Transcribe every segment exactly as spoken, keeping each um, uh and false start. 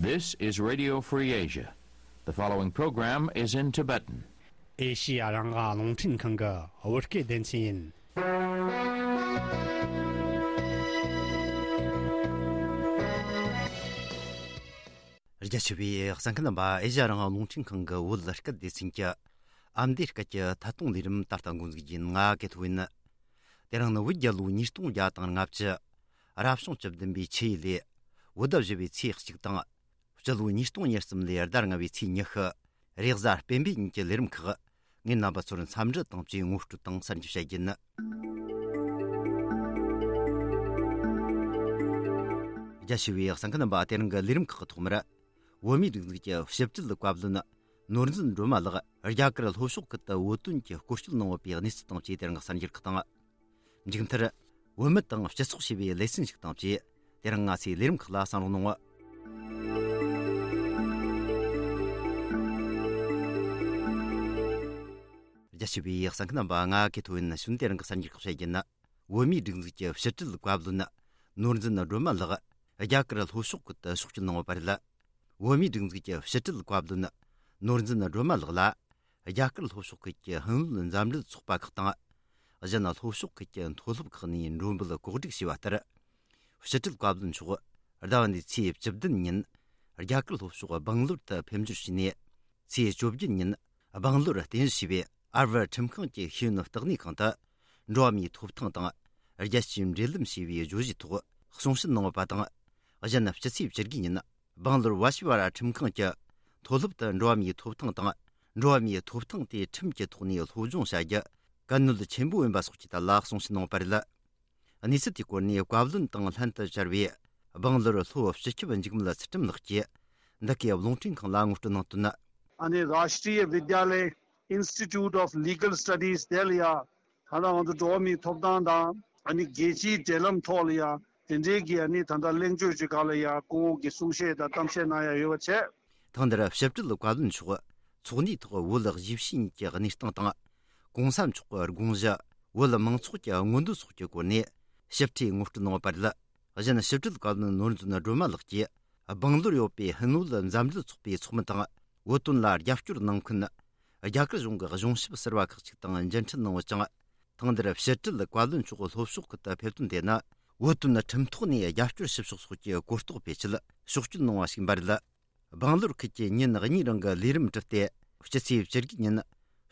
This is Radio Free Asia. The following program is in Tibetan. ཨེ་ཤི་ཡ་རང་དབང་རླུང་འཕྲིན་ཁང་གི་བོད་སྐད་སྡེ་ཚན་ཡིན། རྒྱ་ཆེ་བའི་གསན་མཁན་རྣམ་པ། ཨེ་ཤི་ཡ་རང་དབང་རླུང་འཕྲིན་ཁང་གི་བོད་སྐད་སྡེ་ཚན་གྱི་ཨ་མདོའི་སྐད་ཀྱི་ཐད་གཏོང་ལས་རིམ་ད་ལྟ་འགོ་འཛུགས་རྒྱུ་ཡིན། ང་གི་ཐོ་ཡིན། དེ་རིང་ནི་བོད་རྒྱལ་ལོ་ཉིས་སྟོང་བརྒྱ་དང་ལྔ་བཅུ། རབ་བྱུང་བཅུ་བདུན་པའི་ཆུ་ཡོས་ལོའི་བོད་ཟླ་བཞི་པའི་ཚེས་གཅིག་དང་། སྤྱི་ལོ་ཉིས་སྟོང་ཉེར་གསུམ་ལོའི་ཟླ་ལྔ་པའི་ཚེས་ཉི་ཤུ། རེས་གཟའ་སྤེན་པའི་ཉིན་གྱི་ལས་རིམ་ཁག་ངས་རྣམ་པ་ཚོར་འཚམས་འདྲི་དང་བཅས་ངོ་སྤྲོད་དང་གསར་འགྱུར་བཤད་རྒྱུ་ཡིན། རྒྱ་ཆེ་བའི་གསན་མཁན་རྣམ་པ། དེ་རིང་གི་ལས་རིམ་ཁག་གི་ཐོག་མར། བོད་མིའི་སྒྲིག་འཛུགས་ཀྱི་ཕྱི་དྲིལ་བཀའ་བློན་ནོར་འཛིན་སྒྲོལ་མ་ལགས་རྒྱ་གར་ལྷོ་ཕྱོགས་ཁུལ་དུ་བོད་དོན་གྱི་སྐོར་སྐྱོད་གནང་ཡོད་པའི་གནས་ཚུལ་དང་བཅས་དེ་རིང་གི་གསར་འགྱུར་ཁག་དང་། མཇུག་མཐར། བོད་མི་དང་སྤྱི་ཚོགས་ཞེས་པའི་ལེ་ཚན་ཞིག་དང་བཅས་དེ་རིང་ང་ཚོའི་ལས་རིམ་ཁག་ལ་གསན་རོགས་གནང་ངོ་། རྒྱ་ཆེ་བའི་གསན་མཁན་རྣམ་པ། ང་གི་ཐོ་ཡིན། ནི་ཤུན་དེ་རིང་གི་གསར་འགྱུར་ཁག་བཤད་རྒྱུ་ན། བོད་མིའི་སྒྲིག་འཛུགས་ཀྱི་ཕྱི་དྲིལ་བཀའ་བློན་ནོར་འཛིན་སྒྲོལ་མ་ལགས་རྒྱ་གར་ལྷོ་ཕྱོགས་ཁུལ་དུ་ཕྱོགས་བསྐྱོད་གནང་བ་རེད། བོད་མིའི་སྒྲིག་འཛུགས་ཀྱི་ཕྱི་དྲིལ་བཀའ་བློན་ནོར་འཛིན་སྒྲོལ་མ་ལགས་ལ་རྒྱ་གར་ལྷོ་ཕྱོགས་ཁུལ་གྱི་ཧིན་བོད་མཛའ་འབྲེལ་ཚོགས་པ་ཁག་དང་། གཞན་ལྷོ་ཕྱོགས་ཁུལ་གྱི་མཐོ་སློབ་ཁག་ནས་མགྲོན་འབོད་གོ་སྒྲིག་བྱས་པ་ལྟར། ཕྱི་དྲིལ་བཀའ་བློན་མཆོག་ཟླ་བ་འདིའི་ཚེས་བཅུ་བདུན་ཉིན་རྒྱ་གར་ལྷོ་ཕྱོགས་སྦང་ལོར་དུ་ཕེབས་འབྱོར་བྱས་ནས། ཚེས་བཅོ་བརྒྱད་ཉིན་སྦང་ལོར་རྟེན་གཞི་བྱས་པའི་ཨར་བར་ཁྲིམས་ཁང་གི་ཤེས་ཡོན་བརྟག་གནས་ཁང་དུ་འགྲོ་བ་མིའི་ཐོབ་ཐང་དང་། རྒྱལ་སྤྱིའི་འབྲེལ་ལམ་ཞེས་པའི་བརྗོད་གཞིའི་ཐོག་གསུང་བཤད་གནང་བ་དང་། གཞན་སྤྱི་ཚེས་བཅུ་དགུ་ཉིན་སྦང་ལོར་ཝ་ཤི་ཝ་ར་ཁྲིམས་ཁང་གི་མཐོ་སློབ་ཏུ་འགྲོ་བ་མིའི་ཐོབ་ཐང་དང་། འགྲོ་བ་མིའི་ཐོབ་ཐང་དེ་ཁྲིམས་ཀྱི་ཐོག་ནས་སློབ་སྦྱོང་བྱ་རྒྱུ་གལ་གནད་ཆེན་པོ་ཡིན་པ་སོགས་ཀྱི་ཐད་ལ་གསུང་བཤད་གནང་བ་རེད། གནས་ཚུལ་དེའི་སྐོར་ནས་བཀའ་བློན་དང་ལྷན་དུ་བཅར་བའི་སྦང་ལོར་ལྷོ་སྤྱི་ཁྱབ་འཇིགས་མེད་ཚུལ་ཁྲིམས་ལགས་ཀྱིས་འདི་གའི་རླུང་འཕྲིན་ཁང་ལ་ངོ་སྤྲོད་གནང་དོན། ཨ་ནི་Rashtriya Vidyalaya Institute of Legal Studies དེ་ལ་ཡ་ད་ལྟ་ང་ཚོ་འགྲོ་བ་མིའི་ཐོབ་ཐང་དང་ཨ་ནི་རྒྱལ་སྤྱིའི་འབྲེལ་ལམ་ཐོག་ལ་ཡ་དེ་འབྲེལ་གྱི་ཨ་ནི་ད་ལྟ་གླེང་བརྗོད་ཅིག་སྒང་ལ་ཡ་སྐུ་ངོ་གིས་གསུང་བཤད་དང་གཏམ་བཤད་གནང་ཡ་ཡོད་པ་བྱས། ཐེངས་འདིར་ཕྱི་དྲིལ་བཀའ་བློན་མཆོག་ཚོགས་འདུའི་ཐོག་བོད་གཞིས་བྱེས་གཉིས་ཀྱི་གནས་སྟངས་དང་། གོང་ས་མཆོག་གི་དགོངས་གཞི། བོད་མང་ཚོགས་ཀྱི་མངོན་འདོད་སོགས་ཀྱི་སྐོར་ནས་ཞིབ་ཕྲའི་ངོ་སྤྲོད་གནང་བ་རེད། གཞན་ཕྱི་དྲིལ་བཀའ་བློན་ནོར་འཛིན་སྒྲོལ་མ་ལགས་ཀྱིས་སྦང་ལོར་ཡོད་པའི་ཧིན་བོད་མཛའ་འབྲེལ་ཚོགས་པའི་ཚོགས་མི་དང་བོད་དོན་ལ་རྒྱབ་སྐྱོར་གནང་མཁན་རྒྱ་གར་གཞུང་གི་གཞུང་ཞབས་ཟུར་པ་ཁག་ཅིག་དང་མཇལ་འཕྲད་གནང་བ་ཅིང་། ཐེངས་འདིར་ཕྱི་དྲིལ་བཀའ་བློན་མཆོག་ལྷོ་ཕྱོགས་ཁུལ་དུ་ཕེབས་དོན་དེ་ནི་བོད་དོན་ཁྲིམས་ཐོག་ནས་རྒྱབ་སྐྱོར་ཞུ་ཕྱོགས་སོགས་ཀྱི་གོ་རྟོགས་སྤེལ་ཆེད་ཕྱོགས་བསྐྱོད་གནང་བ་ཞིག་ཡིན་པ་རེད། སྦང་ལོར་ཁུལ་གྱི་ཉིན་གཉིས་རིང་གི་ལས་རིམ་གྲུབ་སྟེ། སྤྱི་ཚེས་བཅུ་དགུ་ཉིན་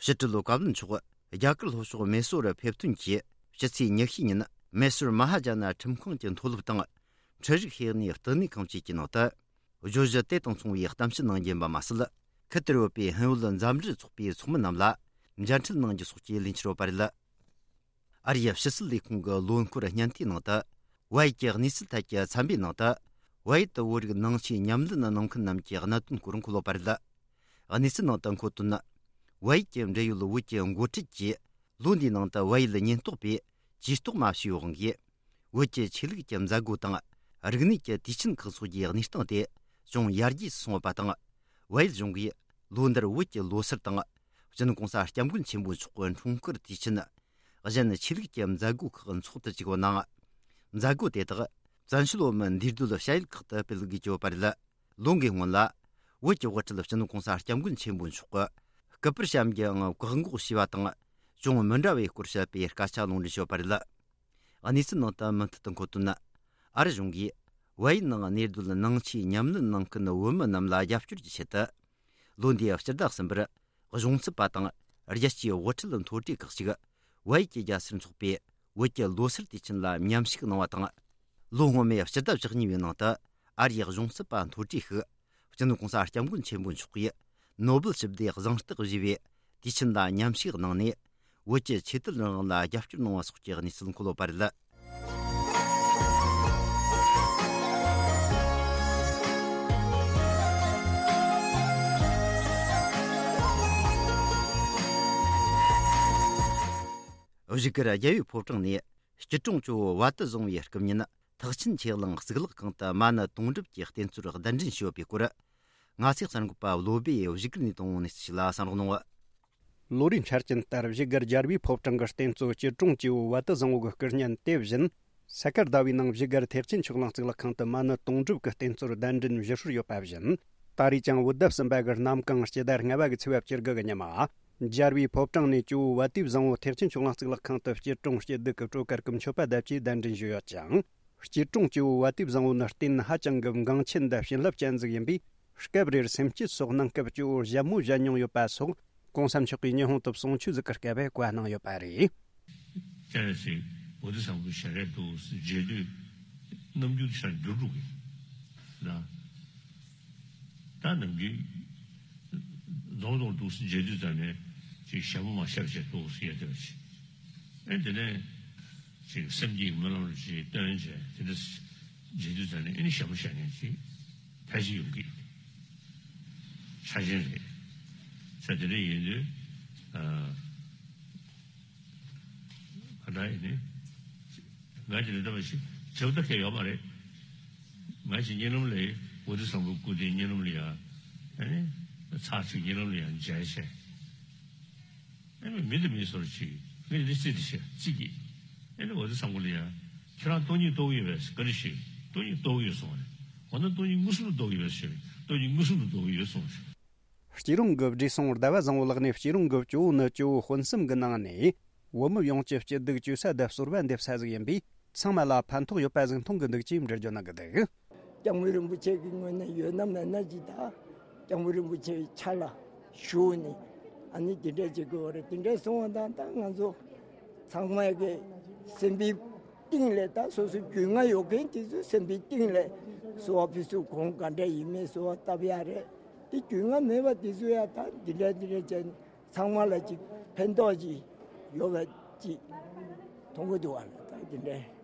ཕྱི་དྲིལ་བཀའ་བློན་མཆོག་རྒྱ་གར་ལྷོ་ཕྱོགས་མེ་སོར་ཕེབས་ཐོན་གྱིས། སྤྱི་ཚེས་ཉི་ཤུ་ཉིན་མེ་སོར་མ་ཧཱ་ཇ་ན་ཁྲིམས་ཁང་གི་མཐོ་སློབ་དང་། འཕྲུལ་རིག་ཤེས་ཡོན་བསྟི་གནས་ཁང་བཅས་ཀྱི་ནང་དུ། བརྗོད་གཞི་དེ་དང་མཚུངས་པའི་གཏམ་བཤད་གནང་རྒྱུ་ཡིན་པ་མ་ཟད། ཁུལ་དེར་ཡོད་པའི་ཧིན་བོད་མཛའ་འབྲེལ་ཚོགས་པའི་ཚོགས་མི་རྣམས་ལ་མཇལ་འཕྲད་གནང་རྒྱུ་སོགས་ཀྱི་ལས་འཆར་ཡོད་པ་རེད། ཨ་རིའི་ཕྱི་སྲིད་ལས་ཁུངས་ཀྱི་ལོ་འཁོར་སྙན་ཐོའི་ནང་དུ། བལ་ཡུལ་གྱི་གནས་ཚུལ་ཐད་ཀྱི་ཚན་པའི་ནང་དུ། བལ་ཡུལ་དུ་བོད་རིགས་ནང་ཆོས་ཉམས་ལེན་གནང་མཁན་རྣམས་ཀྱི་གནད་དོན་སྐོར་འཁོད་ཡོད་པ་རེད། གནས་ཚུལ་ནང་དུ་འཁོད་དོན། བལ་ཡུལ་གྱི་འབྲེལ་ཡོད་བོད་ཀྱི་འགོ་ཁྲིད་ཀྱིས། ལོ་འདིའི་ནང་དུ་བལ་ཡུལ་ཉེན་རྟོག་པས་ཇུས་གཏོགས་མ་བྱས་པའི་དབང་གིས། བོད་ཀྱི་ཆོས་ལུགས་ཀྱི་མཛད་སྒོ་དང་། རིག་གནས་ཀྱི་དུས་ཆེན་ཁག་སོགས་ཀྱི་གནས་སྟངས་དེ་ཅུང་ཡར་རྒྱས་སུ་སོང་བ་དང་། བལ་ཡུལ་གཞུང་གིས་ལོ་འདིར་བོད་ཀྱི་ལོ་སར་དང་། སྤྱི་ནོར་༸གོང་ས་༸སྐྱབས་མགོན་ཆེན་པོ་མཆོག་གི་འཁྲུངས་སྐར་དུས་ཆེན། གཞན་ཆོས་ལུགས་ཀྱི་མཛད་སྒོ་ཁག་འཚོགས་དུ་བཅུག་པ་ནང་། མཛད་སྒོ་དེ་དག་བཙན་བྱོལ་བོད་མིའི་འདུས་སྡོད་བྱ་ཡུལ་ཁག་ཏུ་སྤེལ་དགོས་ཀྱི་ཡོད་པ་རེད། ལོ་འགའི་སྔོན་ལ། བོད་ཀྱི་དབུ་ཁྲིད་སྤྱི་ནོར་༸གོང་ས་༸སྐྱབས་མགོན་ཆེན་པོ་མཆོག་གིས་སྐུ་པར་བཤམས་རྒྱུ་ཡང་བཀག་འགོག་བྱས་པ་དང་། ཅུང་མི་འདྲ་བའི་སྐོར་བཤད་པའི་སྐད་ཆ་ལུང་འདྲེན་བྱས་པ་རེད། གནས་ཚུལ་ནང་དུ་མུ་མཐུད་དུ་འཁོད་དོན། ཨ་རི་གཞུང་གིས་བལ་ཡུལ་ནང་གནས་སྡོད་ནང་ཆོས་ཉམས་ལེན་གནང་མཁན་བོད་མི་རྣམས་ལ་རྒྱབ་སྐྱོར་གྱི་ཆེད་དུ། ལོ་འདིའི་སྤྱི་ཟླ་གསུམ་པར་གཞུང་ཚབ་པ་དང་རྒྱལ་སྤྱིའི་དབུ་ཁྲིད་མཐོ་གྲས་ཁག་ཅིག་བལ་ཡུལ་གྱི་རྒྱལ་སར་འཚོགས་པའི་བོད་ཀྱི་ལོ་སར་དུས་ཆེན་ལ་མཉམ་ཞུགས་གནང་བ་དང་། ལོ་སྔོན་མའི་སྤྱི་ཟླ་བཅུ་གཉིས་པའི་ནང་དུ་ཨ་རིའི་གཞུང་ཚབ་པ་མཐོ་གྲས་ཤིག་སྤྱི་ནོར་༸གོང་ས་༸སྐྱབས་མགོན་ཆེན་པོ་མཆོག་གིས་ནོ་སྦེལ་ཞི་བདེའི་གཟེངས་རྟགས་བཞེས་པའི་དུས་ཆེན་ལ་མཉམ་ཞུགས་གནང་ནས། བོད་ཀྱི་ཆོས་དད་རང་དབང་ལ་རྒྱབ་སྐྱོར་གནང་བ་སོགས་ཀྱི་གནས་ཚུལ་འཁོད་ཡོད་པ་རེད། བཞུགས་སྒར་རྒྱལ་བའི་ཕོ་བྲང་ནས་སྐྱིད་གྲོང་ཇོ་བོ་བ་དུ་བཟང་བོའི་སྐུ་བརྙན་ཐེག་ཆེན་ཆོས་གླིང་གཙུག་ལག་ཁང་དུ་མ་ཎི་དུང་སྒྲུབ་ཀྱི་རྟེན་གཙོར་གདན་འདྲེན་ཞུས་ཡོད་པའི་སྐོར། ང་ཚོའི་གསར་འགོད་པ་བློ་སྦེ་བཞུགས་སྒར་ནས་བཏང་བའི་གནས་ཚུལ་ཞིག་ལ་གསན་རོགས་གནང་། ལོ་རེའི་འཆར་ཅན་ལྟར་བཞུགས་སྒར་རྒྱལ་བའི་ཕོ་བྲང་གི་རྟེན་གཙོ་སྐྱིད་གྲོང་ཇོ་བོ་བ་དུ་བཟང་བོ་གི་སྐུ་བརྙན་དེ་བཞིན། ས་དཀར་ཟླ་བའི་ནང་བཞུགས་སྒར་ཐེག་ཆེན་ཆོས་གླིང་གཙུག་ལག་ཁང་དུ་མ་ཎི་དུང་སྒྲུབ་ཀྱི་རྟེན་གཙོར་གདན་འདྲེན་ཞུ་སྲོལ་ཡོད་པ་བཞིན། ད་རེས་ཀྱང་བོད་ཟླ་གསུམ་པ་གི་གནམ་གང་སྤྱི་ཟླ་ལྔ་པ་གི་ཚེས་པ་བཅུ་དགུ་གི་ཉི་མ། རྒྱལ་བའི་ཕོ་བྲང་ནས་ཇོ་བོ་བ་དེ་བཟང་པོ་ཐེག་ཆེན་ཆོས་གླིང་གཙུག་ལག་ཁང་དུ་སྐྱིད་གྲོང་སྐྱིད་སྡུག་གི་སྤྲོ་གར་གྱི་མཆོད་པ་བརྡབ་ཀྱིས་གདན་འདྲེན་ཞུས་ཡོད་ཅིང་། སྐྱིད་གྲོང་ཇོ་བོ་བ་དེ་བཟང་པོ་ནི་རྟེན་ཧ་ཅང་གི་འགངས་ཆེན་དང་བྱིན་རླབས་ཅན་ཟིག་ཡིན་པས། སྐབས་རེར་སེམས་བསྐྱེད་སོགས་གནང་སྐབས་ཇོ་བོར་ཞལ་མོ་བཞད་མྱོང་ཡོད་པ་སོགས། གོང་ས་མཆོག་གིས་ཉི་ཧོང་དུ་གསུང་ཆོས་ཟིག་གི་སྐབས་བཀའ་གནང་ཡོད་པ་རེད། ཅེས་ཟེར་བོ་དེ་བཟང་པོའི་ཞལ་རས་འདུག་མཇལ་དུས་རྣམ་འགྱུར་ཤར་འགྱུར་འགྲོ་གི་ལ། ད་ནམ་རྒྱུན་རྫོང་རྫོང་འདུག་མཇལ་དུས་ཙམ་ནས་ཅིག་ཞལ་མོ་མ་བཞད་བྱས་འདུག་ཟེར་ཡ་དེ་བ་ཅིག་ཨེ་དེ་ནས་ཅིག་སེམས་ཀྱི་སྨོན་ལམ་ཅིག་བཏོན་བྱས་དེ་འདྲ་མཇལ་དུས་ཙམ་ནས་ཨེ་ནི་ཞལ་མོ་བཞད་མཁན་ཅིག་ཕལ་ཆེར་ཡོང་གི་ཆ་ཅན་རེད། ས་དེ་འདྲ་ཡིན་དུས། ག་འདྲ་ཡིན་ནི། ང་ཅི་ལ་ལྟ་བ་ཞིག་བྱེད་ཐབས་ཁེ་ཡོད་མ་རེད། ང་ཅི་གཉིད་ལམ་ལས་བོ་དྷི་སམ་བྷོ་སྐུ་དེ་གཉིད་ལམ་ལ་ཡ། ཨ་ནི། ཚར་ཅིག་གཉིད་ལམ་ལ་ཡ་མཇལ་བྱས། ཨ་ནི་མི་དེ་མི་སོར་ཅིག་མི་དེ་སྲིད་དེ་བྱས་ཅིག་གིས། ཨ་ནི་བོ་དྷི་སམ་བྷོ་ལ་ཡ། ཁྱེད་རང་སྟོང་ཉིད་རྟོགས་ཡོད་པས་བཀའ་འདྲི་ཞུས། སྟོང་ཉིད་རྟོགས་ཡོད་གསུངས་པ་རེད། འོ་ན་སྟོང་ཉིད་མངོན་སུམ་དུ་རྟོགས་ཡོད་པས་ཞུས། སྟོང་ཉིད་མངོན་སུམ་དུ་རྟོགས་ཡོད་གསུངས་པ་རེད། སྐྱིད་གྲོང་གི་བགྲེས་སོང་ཟླ་བ་བཟང་པོ་ལགས་ནས་སྐྱིད་གྲོང་གི་ཇོ་བོ་ནི་ཇོ་བོ་དཔོན་གསུམ་གྱི་ནང་ནས་བོད་མི་ཡོངས་ཀྱི་སྐྱིད་སྡུག་བཅོས་ས་དང་གསོལ་བ་འདེབས་ས་ཟིག་ཡིན་པས། ཚང་མ་ལ་ཕན་ཐོགས་ཡོད་པ་ཟིག་མཐོང་གི་འདུག་ཅེས་འགྲེལ་བརྗོད་གནང་གི་འདུག་སྐྱབས་མགོན་རིན་པོ་ཆེ་གི་ངོས་ནས་ཡོད་ན་མེད་ན་ཅིག་དང་། སྐྱབས་མགོན་རིན་པོ་ཆེའི་ཕྱག་ལ་ཞུགས་ནས་ཨ་ནི་དེ་འདྲ་བྱེད་དགོས་པ་རེད། དེ་འདྲ་སོང་བ་དང་ད་ང་ཚོ་ཚང་མ་གི་སེམས་པའི་གཏིང་ལས་ད་སོ་སོ་རྒྱུས་མངའ་ཡོད་མཁན་དེ་ཚོ་སེམས་པའི་གཏིང་ལས་གསོལ་བ་ཕུལ་ཚུལ་གོང་ག་འདྲ་ཡིན་མིན་གསོལ་བ་བཏབ་ཡ་རེད། དེ་རྒྱུས་མངའ་མེད་པ་དེ་ཚོ་ཡ་ད་འདི་འདྲ་འདི་འདྲ་བྱས་ནས་ཚང་མ་ལ་ཅིག་ཕན་ཐོགས་ཅིག་ཡོད་པ་ཅིག་མཐོང་གི་འདུག་བ་ལ་ད་འདི་འདྲ།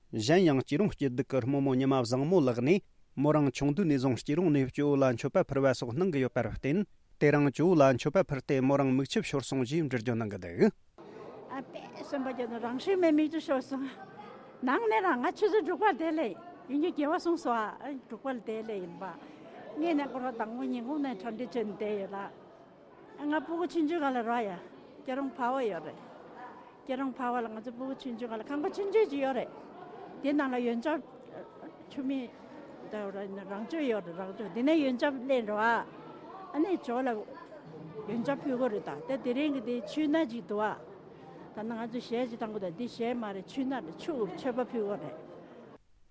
གཞན་ཡང་སྐྱིད་གྲོང་སྐྱིད་སྡུག་གི་རྨོ་མོ་ཉི་མ་བཟང་མོ་ལགས་ནས་མོ་རང་ཆུང་དུས་ནས་བཟུང་སྐྱིད་གྲོང་ནས་སྐྱོ་བོ་ལ་མཆོད་པ་ཕུལ་བ་སོགས་གནང་གི་ཡོད་པར་བརྟེན། དེ་རིང་སྐྱོ་བོ་ལ་མཆོད་པ་ཕུལ་ཏེ་མོ་རང་མིག་ཆུ་ཤོར་སོང་ཞེས་འགྲེལ་བརྗོད་གནང་གི་འདུག་ཨ་པས་སེམས་པ་སྐྱོ་ནས་རང་ཤུལ་མེད་མིག་ཆུ་ཤོར་སོང་། ནང་ནས་རང་ང་ཆུ་ཚོད་དྲུག་པར་བསྡད་ལེ་ཡིན་རྒྱུ་དགེ་བ་གསུངས་སོ་ཨ་དྲུག་པར་བསྡད་ལེ་ཡིན་པ། ངས་ནས་སྐོར་བ་དང་པོ་ཉིན་གུང་ནས་གྲ་སྒྲིག་བྱས་ནས་བསྡད་ཡོད་ལ། ང་སྤུ་གུ་ཆུང་ཆུང་སྒང་ལ་རག་ཡ། སྐྱིད་གྲོང་འཕར་བ་ཡོད་རེད། སྐྱིད་གྲོང་འཕར་བ་ལ་ང་ཚོ་སྤུ་གུ་ཆུང་ཆུང་སྒང་ལ་ཁང་པ་ཆུང་ཆུང་ཅིག་ཡོད་རེད། དེ་ནང་ལ་ཡོན་ཆབ། ཆུ་མིག་ད་རང་ཆུ་ཡོད་རེད་རང་ཆུ་དེ་ནས་ཡོན་ཆབ་ལེན་འགྲོ་ཨ། ཨ་ནི་ཇོ་ལ་ཡོན་ཆབ་ཕུལ་གོ་རེད་ད་དེ་དེ་རིང་གི་དེ་ཆུ་སྣ་ཅིག་འདུག་ཨ། ད་ནང་ང་ཚོ་གཞས་ཅིག་བཏང་གོ་ད་འདི་གཞས་མ་རེད་ཆུ་སྣ་རེད་ཆུ་མཆོད་པ་ཕུལ་གོ་རེད།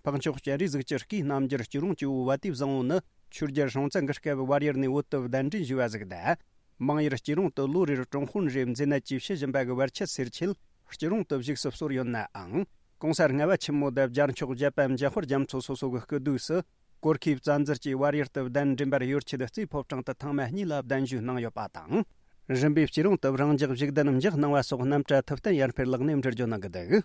འཕགས་མཆོག་སྤྱན་རས་གཟིགས་ཀྱི་སྐུའི་རྣམ་རྒྱལ་སྐྱིད་གྲོང་སྐྱིད་པོ་བ་དེ་བཟང་པོ་ནི་ཆོས་རྒྱལ་སྲོང་བཙན་གྱི་སྐབས་བལ་ཡུལ་ནས་བོད་དུ་གདན་འདྲེན་ཞུས་པ་ཟིག་དང་། མང་ཡུལ་སྐྱིད་གྲོང་དུ་ལོ་རེར་ཀྲུང་ཧོན་རེ་མཛེས་ནད་ཀྱིས་ཤི་བཞིན་པ་གི་བར་ཆད་སེལ་ཆེད་སྐྱིད་གྲོང་དུ་བཞུགས་སུ་གསོལ་ཡོད་ནའང་། གོང་ས་ལྔ་པ་ཆེན་མོ་དང་བརྒྱ་མཆོག་བརྒྱད་པ་འཇམ་དཔལ་རྒྱ་མཚོ་སོ་སོ་གི་སྐུ་དུས་སུ་གོར་ཁེ་བཙན་འཛུལ་གྱིས་བལ་ཡུལ་དུ་གདན་འདྲེན་པར་ཡུལ་ཆེད་རྩེ་ཕོ་བྲང་དུ་ཐེངས་མ་གཉིས་ལ་གདན་ཞུས་གནང་ཡོད་པ་དང་། རིམ་པས་སྐྱིད་གྲོང་དུ་རང་འཇགས་བཞུགས་གདན་འཇགས་གནང་བ་སོགས་རྣམ་གྲྭ་ཐུབ་བསྟན་ཡར་འཕེལ་ལགས་ནས་འགྲེལ་བརྗོད་གནང་གི་འདུག་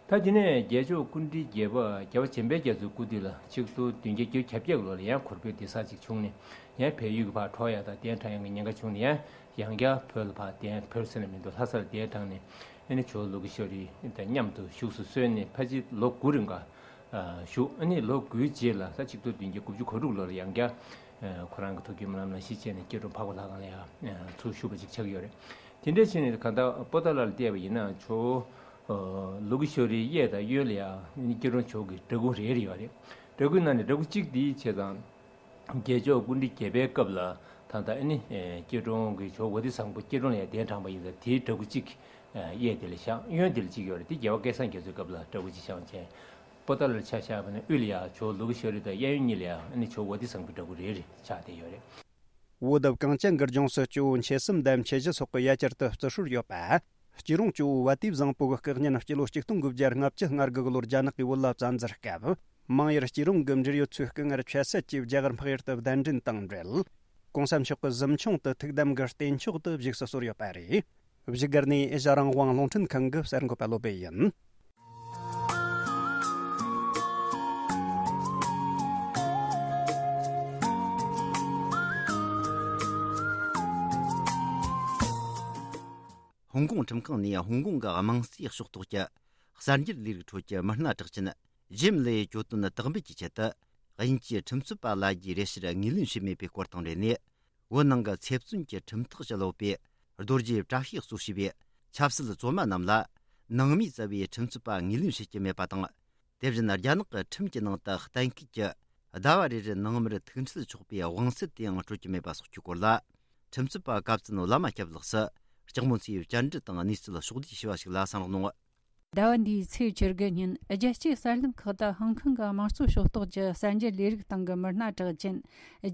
ད་དེ་ནས་རྒྱལ་མཆོག་སྐུ་ཕྲེང་བརྒྱད་པ་རྒྱལ་བ་བྱམས་པའི་རྒྱ་མཚོའི་སྐུ་དུས་ལ་ཆིག་སྟོང་བདུན་བརྒྱ་བརྒྱད་ཅུ་གྱ་བརྒྱད་ལོ་ལ་ཡང་གོར་བོད་འདི་ས་ཅིག་བྱུང་ནས་ཡང་བལ་ཡུལ་གྱི་ཕར་འགྲོ་ཡ་དང་གདན་དྲངས་ཡ་གི་ཉེན་ཁ་བྱུང་ནས་ཡང་ཡང་བསྐྱར་བོད་ལ་ཕར་གདན་བོད་ཟེར་ན་མི་འདུག་ལྷ་སར་གདན་དྲངས་ནས་ཨ་ནི་ཇོ་བོ་ལུ་གུ་ཤོ་རི་དང་མཉམ་དུ་བཞུགས་སུ་གསོལ་ནས་ཕལ་ཆེར་ལོ་དགུ་རིང་ག་བཞུགས། ཨ་ནི་ལོ་དགུའི་རྗེས་ལ་ས་ཆིག་སྟོང་བདུན་བརྒྱ་དགུ་བཅུ་གོ་དྲུག་ལོར་ཡང་བསྐྱར་ཁོ་རང་གི་ཐུགས་ཀྱི་སྨོན་ལམ་ལ་གཞི་བྱས་ནས་སྐྱིད་གྲོང་འཕགས་པ་ལྷ་ཁང་ལ་ཡང་ཚུར་བཞུགས་པ་ཅིག་ཆགས་ཀྱི་ཡོད་རེད། དེ་འདྲ་བྱས་ནས་གང་ལྟར་པོ་ཏཱ་ལ་ལ་བལྟས་པ་ཡིན་ན་ཇོ་བོ་ལུ་གུ་ཤོ་རིའི་གཡས་དང་གཡོན་ལ་ཡང་སྐྱིད་གྲོང་ཇོ་བོ་གི་འདྲ་སྐུ་རེ་རེ་ཡོད་རེད། འདྲ་སྐུའི་ནང་ནས་འདྲ་སྐུ་གཅིག་འདི་བྱས་ཙང་། རྒྱལ་མཆོག་སྐུ་ཕྲེང་བརྒྱད་པའི་སྐབས་ལ་ད་ལྟ་ཨ་ནི་སྐྱིད་གྲོང་གི་ཇོ་བོ་དྷི་སམ་བྷོ་སྐྱིད་གྲོང་ལ་ཡང་གདན་དྲངས་པ་ཡིན་ཙང་དེའི་འདྲ་སྐུ་གཅིག་གཡས་དེ་ལ་བཞག་གཡོན་དེ་ལ་གཅིག་ཡོད་རེད། དེ་རྒྱལ་བ་སྐལ་བཟང་རྒྱ་མཚོའི་སྐབས་ལ་འདྲ་སྐུ་གཅིག་བཞག་བྱས། པོ་ཏཱ་ལར་ཆ་བཞག་པ་ན་དབུས་ལ་ཡང་ཇོ་བོ་ལུ་གུ་ཤོ་རི་དང་གཡས་གཡོན་གཉིས་ལ་ཡང་ཨ་ནི་ཇོ་བོ་དྷི་སམ་བྷོའི་འདྲ་སྐུ་རེ་རེ་ཆགས་བསྡད་ཡོད་རེད། བོད་གངས་ཅན་གྱི་ལྗོངས་སུ་ཇོ་བོ་མཆེད་གསུམ་དང་མཆེད་བཞི་སོགས་ཀྱི་ཡ་གྱལ་དུ་བརྩི་སྲོལ་ཡོད་པ། སྐྱིད་གྲོང་ཇོ་བོ་བ་དེ་བཟང་པོ་གི་སྐུ་བརྙན་སྤྱི་ལོ་ཆིག་སྟོང་དགུ་བརྒྱ་ལྔ་བཅུ་ང་དགུ་གི་ལོར་རྒྱ་ནག་གིས་བོད་ལ་བཙན་འཛུལ་སྐབས། མང་ཡུལ་སྐྱིད་གྲོང་གི་འབྲེལ་ཡོད་ཚོའི་སྐུ་ངལ་ཆད་སད་ཀྱིས་རྒྱ་གར་འཕགས་ཡུལ་དུ་གདན་འདྲེན་དང་འབྲེལ། གོང་ས་མཆོག་གི་གཟིམ་ཆུང་དུ་ཐུགས་དམ་གྱི་རྟེན་མཆོག་ཏུ་བཞུགས་སུ་གསོལ་ཡོད་པ་རེད། བཞུགས་སྒར་ནས་ཨེ་ཤ་རང་དབང་རླུང་འཕྲིན་ཁང་གི་གསར་འགོད་པ་བློ་བྷེ་ཡིན། ཧོང་ཀོང་ཁྲིམས་ཁང་ནས་ཧོང་ཀོང་གི་དམངས་སྲིད་ཕྱོགས་གཏོགས་ཀྱི་གསར་འགྱུར་ལས་རིགས་ཁྲོད་ཀྱི་མི་སྣ་གྲགས་ཅན་ཇེམ་ལེ་གྱོད་དོན་དག་འབུད་ཀྱི་ཆེད་དུ་དབྱིན་ཇིའི་ཁྲིམས་རྩོད་པ་ལ་རྒྱའི་རེ་ཞུར་ངོས་ལེན་བྱས་མེད་པའི་སྐོར་དང་འབྲེལ་ནས། བོད་ནང་གི་ཚེ་བཙོན་གྱི་ཁྲིམས་ཐག་བཅད་ཡོད་པའི་རྡོ་རྗེ་བཀྲ་ཤིས་གཙོ་བྱས་པའི་ཆབ་སྲིད་བཙོན་མ་རྣམས་ལ་ནང་མིའི་རྩ་བའི་ཁྲིམས་རྩོད་པ་ངོས་ལེན་བྱེད་ཀྱི་མེད་པ་དང་ དེ་བཞིན་རྒྱ་ནག་གི་ཁྲིམས་ཀྱི་ནང་དུ་གཏན་འཁེལ་གྱི་ཟླ་བ་རེ་རེར་ནང་མིར་ཐུག་འཕྲད་ཆོག་པའི་དབང་ཚད་དེའང་སྤྲོད་ཀྱི་མེད་པ་སོགས་ཀྱི་སྐོར་ལ། ཁྲིམས་རྩོད་པ་གབ་ཙན་བླ་མ་སྐྱབས་ལགས་སུ་ལྕགས་མོ་མཚོའི་བཅར་འདྲི་དང་གནས་ཚུལ་ཕྱོགས་བསྡུས་ཞུས་པ་ཞིག་ལ་གསན་རོགས་གནང་། ཟླ་བ་འདིའི་ཚེས་བཅུ་དགུ་ཉིན་རྒྱལ་སྤྱིའི་གསར་ལམ་ཁག་ཏུ་ཧོང་ཀོང་གི་དམངས་གཙོ་ཕྱོགས་གཏོགས་ཀྱི་གསར་འགྱུར་ལས་རིགས་སྟེང་གི་མི་སྣ་གྲགས་ཅན་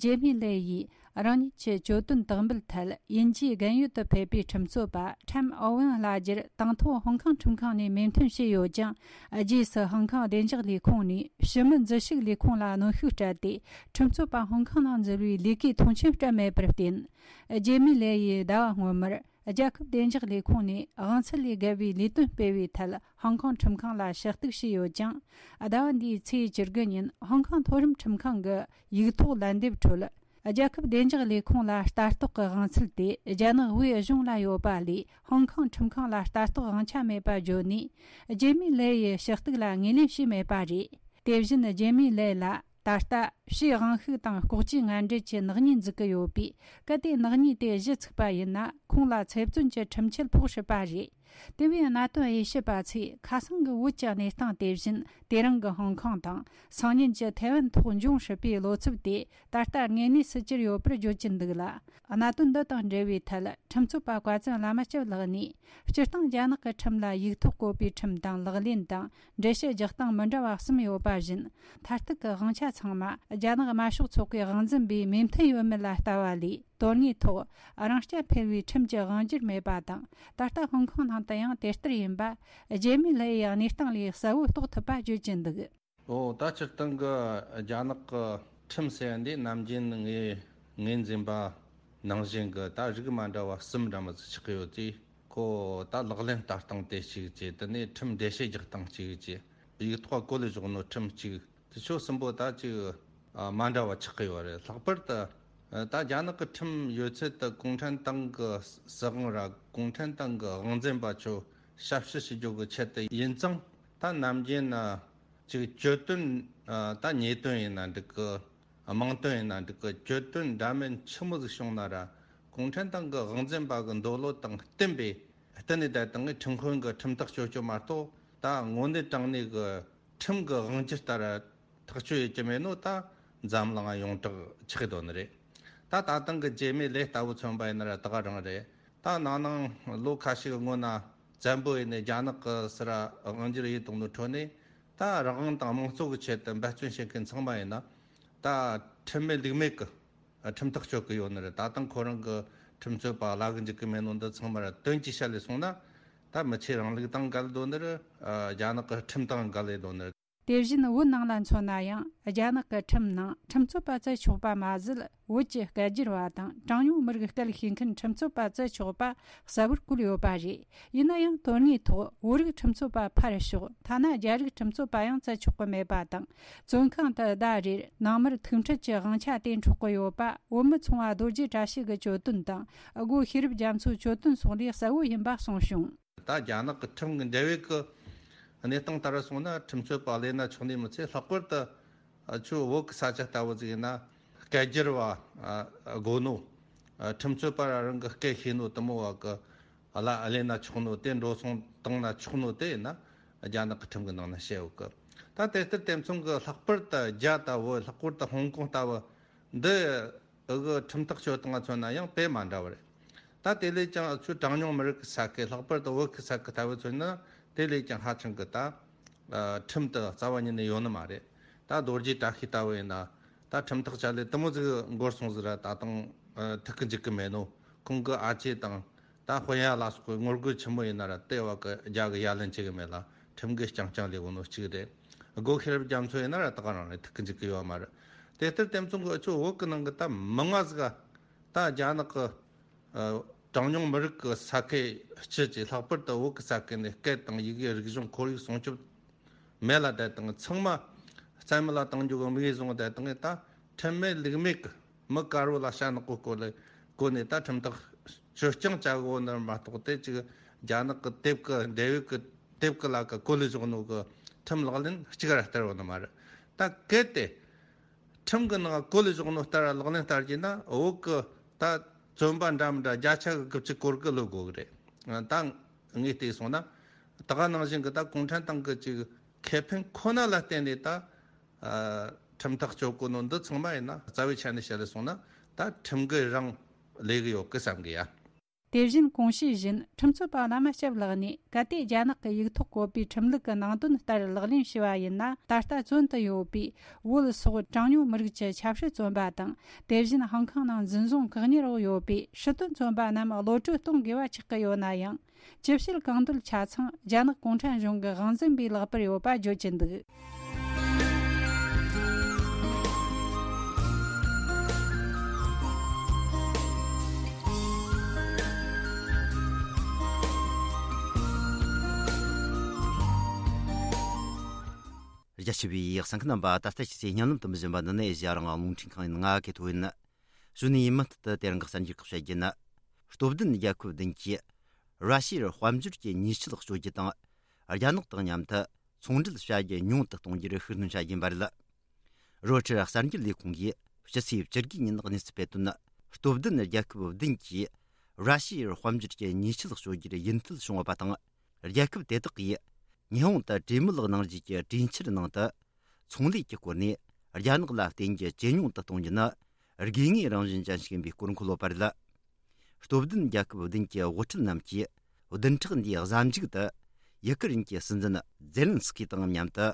ཇེ་མི་ལེ་ཡིས། རང་ཉིད་ཀྱི་གྱོད་དོན་དག་འབུལ་ཐད་དབྱིན་ཇིའི་རྒན་ཡོལ་དུ་ཕེབས་པའི་ཁྲིམས་རྩོད་པ་ཁྲེམ་ཨོ་ཝེན་བླ་རྒྱུར་དང་ཐོག་ཧོང་ཀོང་ཁྲིམས་ཁང་ནས་མོས་མཐུན་བྱས་ཡོད་ཀྱང་། རྗེས་སུ་ཧོང་ཀོང་བདེ་འཇགས་ལས་ཁུངས་ནས་ཕྱི་མི་འཛུལ་ཞུགས་ལས་ཁུངས་ལ་གནོན་ཤུགས་སྤྲད་དེ། ཁྲིམས་རྩོད་པ་ཧོང་ཀོང་ནང་འཛུལ་བའི་ལས་ཀའི་མཐོང་ཆེན་སྤྲད་མེད་པར་བརྟེན། ཇེ་མི་ལེ་ཡིས་ཟླ་བ་སྔོན་མར་རྒྱལ་ཁབ་བདེ་འཇགས་ལས་ཁུངས་ནས་དབང་ཚད་ལས་བརྒལ་བའི་ལས་དོན་སྤེལ་བའི་ཐད་ཧོང་ཀོང་ཁྲིམས་ཁང་ལ་ཞུ་གཏུག་བྱས་ཡོད་ཀྱང་། ཟླ་བ་འདིའི་ཚེས་བཅུ་དགུ་ཉིན་ཧོང་ཀོང་མཐོ་རིམ་ཁྲིམས་ཁང་གི་ཡིག་ཐོག་ལན་འདེབས་ཁྲོད། རྒྱལ་ཁབ་བདེ་འཇགས་ལས་ཁུངས་ལ་ལྟ་རྟོག་གི་དབང་ཚད་དེ་རྒྱ་ནག་དབུས་གཞུང་ལ་ཡོད་པ་ལས་ཧོང་ཀོང་ཁྲིམས་ཁང་ལ་ལྟ་རྟོག་དབང་ཆ་མེད་པ་བརྗོད་ནས། ཇེ་མི་ལེ་ཡི་ཞུ་གཏུག་ལ་ངོས་ལེན་བྱས་མེད་པ་རེད། དེ་བཞིན་ཇེ་མི་ལེ་ལ་ད་ལྟ་ཕྱིའི་དབང་ཤུགས་དང་ལྐོག་ཇུས་ངན་འབྲེལ་གྱི་ནག་ཉེས་འཛུགས་ཀྱི་ཡོད་པས། གལ་ཏེ་ནག་ཉེས་དེ་གཞི་ཚུགས་པ་ཡིན་ན། ཁོང་ལ་ཚེ་བཙོན་གྱི་ཁྲིམས་ཆད་ཕོག་སྲིད་པ་རེད། དེ་བས་གནད་དོན་དབྱེ་ཞིབ་པ་ཚོས་ཁ་སང་གི་བོད་ཀྱི་གནས་སྟངས་དེ་བཞིན། དེ་རིང་གི་ཧོང་ཀོང་དང་སང་ཉིན་གྱི་ཐའེ་ཝན་ཐོག་འབྱུང་སྲིད་པའི་བློ་འཚབ་དེ་ད་ལྟ་དངོས་གནས་སུ་གྱུར་ཡོད་པར་བརྗོད་ཀྱིན་འདུག་ལ། གནད་དོན་འདི་དང་འབྲེལ་བའི་ཐད་ཁྲིམས་རྩོད་པ་བཀའ་བཙུན་བླ་མ་སྐྱབས་ལགས་ནས། སྤྱིར་བཏང་རྒྱ་ནག་གི་ཁྲིམས་ལ་ཡིག་ཐོག་བཀོད་པའི་ཁྲིམས་དང་ལག་ལེན་དང་། འགྲེལ་བཤད་རྒྱག་སྟངས་མི་འདྲ་བ་གསུམ་ཡོད་པ་བཞིན། མཐར་གཏུག་གི་དབང་ཆ་ཚང་མ་རྒྱ་ནག་དམར་ཤོག་ཚོགས་པའི་དབང་འཛིན་པས་མོས་མཐུན་ཡོད་མེད་ལ་ལྟ་བ་ལས། དོན་དངོས་ཐོག་རང་རྐྱ་འཕེར་བའི་ཁྲིམས་ཀྱི་དབང་སྒྱུར་མེད་པ་དང་། ད་ལྟ་ཧོང་ཀོང་ནང་དུ་ཡང་དེ་ལྟར་ཡིན་པ། ཇེ་མི་ལེ་ཡི་གནས་སྟངས་ལས་གསལ་བོ་རྟོགས་ཐུབ་པ་བརྗོད་ཀྱི་འདུག། ཨོ། ད་སྤྱིར་བཏང་གི་རྒྱ་ནག་གི་ཁྲིམས་ཟེར་ཡ་འདི་ནམ་རྒྱུན་ངས་ངོས་འཛིན་པ་ནང་བཞིན་གྱི་ད་རིགས་མ་འདྲ་བ་གསུམ་འདྲ་མོ་ཟིག་ཆགས་ཀྱི་ཡོད་དུས། ཁོ་ད་ལག་ལེན་བསྟར་སྟངས་དེ་གཅིག་བྱས། དེ་ནས་ཁྲིམས་འགྲེལ་བཤད་རྒྱག་སྟངས་གཅིག་བྱས། ཡིག་ཐོག་བཀོད་ལས་བཞག་ནོ་ཁྲིམས་གཅིག། དེ་ཆོ་གསུམ་པོ་ད་ཅིག་ཨ་མ་འདྲ་བ་ཆགས་ཀྱི་ཡོད་རེད། ལྷག་པར་དུ་ཨ་ད་རྒྱ་ནག་གི་ཁྲིམས་ཡོད་ཚད་དུ་གུང་ཁྲན་ཏང་གི་སྲིད་དབང་ར་གུང་ཁྲན་ཏང་གི་དབང་འཛིན་པ་ཆོ་ཞབས་ཕྱི་ཞུ་རྒྱུ་གི་ཆེད་དུ་ཡིན་ཙང་། ད་ནམ་རྒྱུན་ན་ཅིག་གྱོད་དོན་ཨ་ད་ཉེས་དོན་ཡིན་ན་འགྲིག་གི། དམངས་དོན་ཡིན་ན་འགྲིག་གི། གྱོད་དོན་འདྲ་མིན་ཆི་མོ་ཟིག་བྱུང་ན་ར་གུང་ཁྲན་ཏང་གི་དབང་འཛིན་པ་གི་འདོད་བློ་དང་བསྟུན་པའི་བསྟུན་ནས་བསྡད་དང་ངས་ཁྲིམས་དཔོན་གི་ཁྲིམས་ཐག་གཅོད་རྒྱུ་མ་གཏོགས། ད་དངོས་གནས་དྲང་གནས་གི་ཁྲིམས་གི་དབང་སྒྱུར་ལྟར་ཐག་གཅོད་ཡེད་ཀྱི་མེད་ནོ། ད་འཛམ་གླིང་ཡོངས་གྲགས་ཆགས་དོན་རེད། ད་ད་ཐེངས་གི་ཇེ་མི་ལེ་ལྟ་བུ་མཚོན་པ་ཡིན་ན་ར་ད་ག་རང་རེད། ད་ནང་ནང་ལོ་ཁ་ཤས་གི་སྔོན་ན་བཙན་པོ་ཡིན་ནས་རྒྱ་ནག་གི་སི་ར་དབང་སྒྱུར་ཡེད་བཏང་ནོ་ཁྲོད་ནས། ད་རང་དབང་དང་དམངས་གཙོ་གི་ཆེད་དུ་འབད་བརྩོན་བྱེད་མཁན་ཚང་མ་ཡིན་ན། ད་ཁྲིམས་མེད་ལུགས་མེད་གི་ཁྲིམས་ཐག་གཅོད་གི་ཡོད་ནི་རེད། ད་ཐེངས་ཁོ་རང་གི་ཁྲིམས་རྩོད་པ་བླ་གི་འཇུག་གི་མེད་ནོ་འདི་ཚང་མ་ར་དོན་གྱི་ཆ་ལས་སོང་ན། ད་མི་ཆོས་རིང་ལུགས་དང་འགལ་དོ་ནི་རེད། རྒྱ་ནག་གི་ཁྲིམས་དང་འགལ་ལེ་དོ་ནི་རེད། དེ་བཞིན་བོད་ནང་ལ་མཚོན་ན་ཡང་། རྒྱ་ནག་གི་ཁྲིམས་ནང་ཁྲིམས་རྩོད་པ་བཙལ་ཆོག་པ་མ་ཟད། བོད་ཀྱི་སྐད་སྒྱུར་བ་དང་གྲངས་ཉུང་མི་རིགས་སྐད་ཤེས་མཁན་ཁྲིམས་རྩོད་པ་བཙལ་ཆོག་པ་གསལ་བོར་བཀོད་ཡོད་པ་རེད། ཡིན་ན་ཡང་དོན་དངོས་ཐོག་བོད་རིགས་ཁྲིམས་རྩོད་པ་ཕར་ཞོག་ཐ་ན་རྒྱ་རིགས་ཁྲིམས་རྩོད་པ་ཡང་བཙལ་ཆོག་གི་མེད་པ་དང་། བཙོན་ཁང་དུ་ཟླ་རེར་ནང་མིར་ཐུག་འཕྲད་ཀྱི་དབང་ཆ་དེ་འཕྲོག་གི་ཡོད་པ། བོད་མི་ཚོང་བ་རྡོ་རྗེ་བཀྲ་ཤིས་ཀྱི་གྱོད་དོན་དང་། སྒོ་ཤེས་རབ་རྒྱ་མཚོའི་གྱོད་དོན་སོགས་ལས་གསལ་བོ་ཡིན་པ་གསུངས་བྱུང་། ད་རྒྱ་ནག་གི་ཁྲིམས་ཀྱི་འབྲེལ་བའི་གི་གནས་སྟངས་ལྟར་སོང་ན། ཁྲིམས་རྩོད་པ་ལས་ན་ཆོག་ནི་མི་ཚད། ལྷག་པར་དུ་ཨ་ཆུ་བོད་ཀྱི་ས་ཆ་ལྟ་བུ་ཟིག་ཡིན་ན། སྐད་སྒྱུར་བ་ཨ་དགོས་ནོ། ཨ་ཁྲིམས་རྩོད་པ་རང་གི་སྐད་ཤེས་ནོ་དུ་མོ་བ་གི་ཨ་ལ་ཨ་ལས་ན་ཆོག་ནོ། དེ་འགྲོ་སོང་བཏང་ན་ཆོག་ནོ་དེ་ཡིན་ན། རྒྱ་ནག་གི་ཁྲིམས་ཀྱི་ནང་ན་བཤད་ཡོད་གི། ད་དེ་ལྟར་དེ་མཚུངས་ཀྱི་ལྷག་པར་དུ་རྒྱ་ལྟ་བུ། ལྷག་པར་དུ་ཧོང་ཀོང་ལྟ་བུ་འདི། འུ་གི་ཁྲིམས་ཐག་གཅོད་སྟངས་མཚོན་ན་ཡང་དཔེ་མ་འདྲ་བ་རེད། ད་དེ་ལས་ཀྱང་ཆུ་གྲངས་ཉུང་མི་རིགས་ཀྱི་ས་ཁུལ། ལྷག་པར་དུ་བོད་ཀྱི་ས་ཁུལ་ལྟ་བུ་མཚོན་ན། དེ་ལས་ཀྱང་ཧ་ཅང་གི་ད་ཨ་ཁྲིམས་དེ་རྩ་བ་ཉིད་ནས་ཡོད་ནི་མ་རེད། ད་རྡོ་རྗེ་བཀྲ་ཤིས་ལྟ་བུ་ཡིན་ན། ད་ཁྲིམས་ཐག་བཅད་ལས་དུ་མོ་ཟིག་འགོར་སོང་ཟིག་ར། ད་དུང་ཨ་ཐུག་གི་འཇུག་གི་མེད་ནོ། ཁོང་གི་ཨ་ཅེ་དང་ད་དཔོན་ཡ་ལ་སོགས་གི་ངོ་རྒོལ་ཆེན་མོ་ཡིན་ན་ར། དེ་བ་གི་རྒྱ་གི་ཡ་ལན་བྱེད་གི་མེད་ལ། ཁྲིམས་གི་རྐྱང་རྐྱང་ལས་གོ་ནོ་གཅིག་རེད། སྒོ་ཤེས་རབ་རྒྱ་མཚོ་ཡིན་ན་ར་ད་ག་རང་རེད། ཐུག་གི་འཇུག་གི་ཡོད་མ་རེད། དེ་ལྟར་དེ་མཚུངས་གི་ཨ་ཆུ་བོད་གི་ནང་གི་ད་མི་ང་ཟིག་ག་ད་རྒྱ་ནག་གི་ཨ་གྲངས་ཉུང་མི་རིགས་ཀྱི་ས་ཁུལ་སྤྱི་ཀྱི། ལྷག་པར་དུ་བོད་ཀྱི་ས་ཁུལ་ནས་སྐད་དང་ཡི་གེ། རིག་གཞུང་ཁོར་ཡུག་སྲུང་སྐྱོབ་མེད་ལ་བསྡད་དང་། ཚང་མ་རྩ་མེད་ལ་གཏོང་རྒྱུ་གི་དམིགས་ཡུལ་བཟུང་བསྡད་དང་། ད་ཁྲིམས་མེད་ལུགས་མེད་ཀྱི་མི་དཀར་བོ་ལ་ཞྭ་ནག་པོ་བསྐོར་ལ་བསྐོར་ནས། ད་ཁྲིམས་ཐག་གཅོད་རྐྱང་བྱ་དགོས་ནི་མ་གཏོགས། དེ་ཅིག་རྒྱ་ནག་གི་དེབ་ཀྱི་འབྲེལ་ཡོད་ཀྱི་དེབ་ཀྱི་ལ་ཀ་བཀོད་ལས་བཞག་ནོ་གི་ཁྲིམས་ལག་ལེན་གཅིག་ར་བསྟར་བ་ནི་མ་རེད། ད་གལ་ཏེ་ཁྲིམས་ཀྱི་ནང་བཀོད་ལས་བཞག་ནོ་ལྟར་ལག་ལེན་བསྟར་གྱི་ན། བོད་ཀྱི་ད་བཙོན་པ་འདྲ་མི་འདྲ་བརྒྱ་ཆ་གི་དགུ་བཅུ་གོ་དགུ་ལོས་དགོས་གི་རེད། ད་ངས་བལྟས་སོང་ན། ད་ག་ནང་བཞིན་གྱི་ད་གུང་ཁྲན་ཏང་གི་ཅིག་ ཁེ་ཕན་ཁོ་ན་ལ་བརྟེན་ནས་ད་ཨ་ཁྲིམས་ཐག་གཅོད་གོ་ནོ་འདི་ཚང་མ་ཡིན་ན་རྩ་བའི་ཆ་ནས་བཤད་ལས་སོང་ན་ད་ཁྲིམས་འགལ་རང་ལས་གི་ཡོད་གི་བསམ་གི་ཡ། དེ་བཞིན་གོང་བཤད་བཞིན་ཁྲིམས་རྩོད་པ་བླ་མ་སྐྱབས་ལགས་ནས་གལ་ཏེ་རྒྱ་ནག་གི་ཡིག་ཐོག་བཀོད་པའི་ཁྲིམས་ལུགས་ཀྱི་ནང་དོན་ལྟར་ལག་ལེན་བྱས་པ་ཡིན་ན། ད་ལྟ་བཙོན་དུ་ཡོད་པའི་བོད་སོགས་གྲངས་ཉུང་མི་རིགས་ཀྱི་ཆབ་སྲིད་བཙོན་པ་དང་། དེ་བཞིན་ཧང་ཀང་ནང་འཛིན་བཟུང་བཀག་ཉར་འོག་ཡོད་པའི་སྲིད་དོན་བཙོན་པ་རྣམས་གློད་བཀྲོལ་གཏོང་དགོས་པ་ཆགས་ཀྱི་ཡོད་ན་ཡང་། ཅི་བྱེད་གང་འདོད་ཆ་ཚང་རྒྱ་ནག་གུང་ཁྲན་གཞུང་གི་དབང་འཛིན་པའི་ལག་པར་ཡོད་པ་བརྗོད་ཀྱི་འདུག། རྒྱ་ཆེ་བའི་གསན་མཁན་རྣམ་པ། ད་ལྟ་ཕྱི་ཚེས་བརྙན་ལམ་དུ་མི་བཞིན་པ་འདི་ནས་ཨེ་ཤ་ཡ་རང་དབང་རླུང་འཕྲིན་ཁང་ཡིན། ང་གི་ཐོ་ཡིན། གཞུག་ནས་མུ་མཐུད་དུ་དེ་རིང་གི་གསར་འགྱུར་ཁག་བཤད་རྒྱུ་ན། སྟོབས་ལྡན་རྒྱལ་ཁབ་བདུན་གྱིས་ར་ཤི་ཡར་དཔལ་འབྱོར་གྱི་ཉེས་ཆད་གཅོད་རྒྱུ་དང་། རྒྱ་ནག་དང་མཉམ་དུ་ཚོང་འབྲེལ་བྱ་རྒྱུ་ཉུང་དུ་གཏོང་རྒྱུར་ཤུགས་སྣོན་བྱ་རྒྱུ་ཡིན་པ་རེད། རོའི་ཊར་གསར་འགྱུར་ལས་ཁུངས་ཀྱིས་སྤྱི་ཚེས་བཅུ་དགུ་ཉིན་གནས་ཚུལ་སྤེལ་དོན། སྟོབས་ལྡན་རྒྱལ་ཁབ་བདུན་གྱིས་ར་ཤི་ཡར་དཔལ་འབྱོར་གྱི་ཉེས་ཆད་གཅོད་རྒྱུར་ཡིད་འཐད་བྱུང་ཡོད་པ་དང་། རྒྱལ་ཁབ་དེ་དག་གིས་ཉི་ཧོང་དུ་གྲོས་མོལ་གནང་རྒྱུ་གི་གྲོས་འཆར་ནང་དུ། ཚོང་ལས་ཀྱི་སྐོར་ནས་རྒྱ་ནག་ལ་བརྟེན་རྒྱུ་ཇེ་ཉུང་དུ་གཏོང་རྒྱུ་ནི་དགོས་ངེས་རང་བཞིན་ཅན་ཞིག་ཡིན་པའི་སྐོར་འཁོད་ཡོད་པ་རེད། སྟོབས་ལྡན་རྒྱལ་ཁབ་བདུན་གྱི་དབུ་ཁྲིད་རྣམས་ཀྱིས་བདུན་ཕྲག་འདིའི་གཟའ་མཇུག་ཏུ་ཡུ་ཀེ་རེན་གྱི་སྲིད་འཛིན་ཛེ་ལན་སི་ཀི་དང་མཉམ་དུ་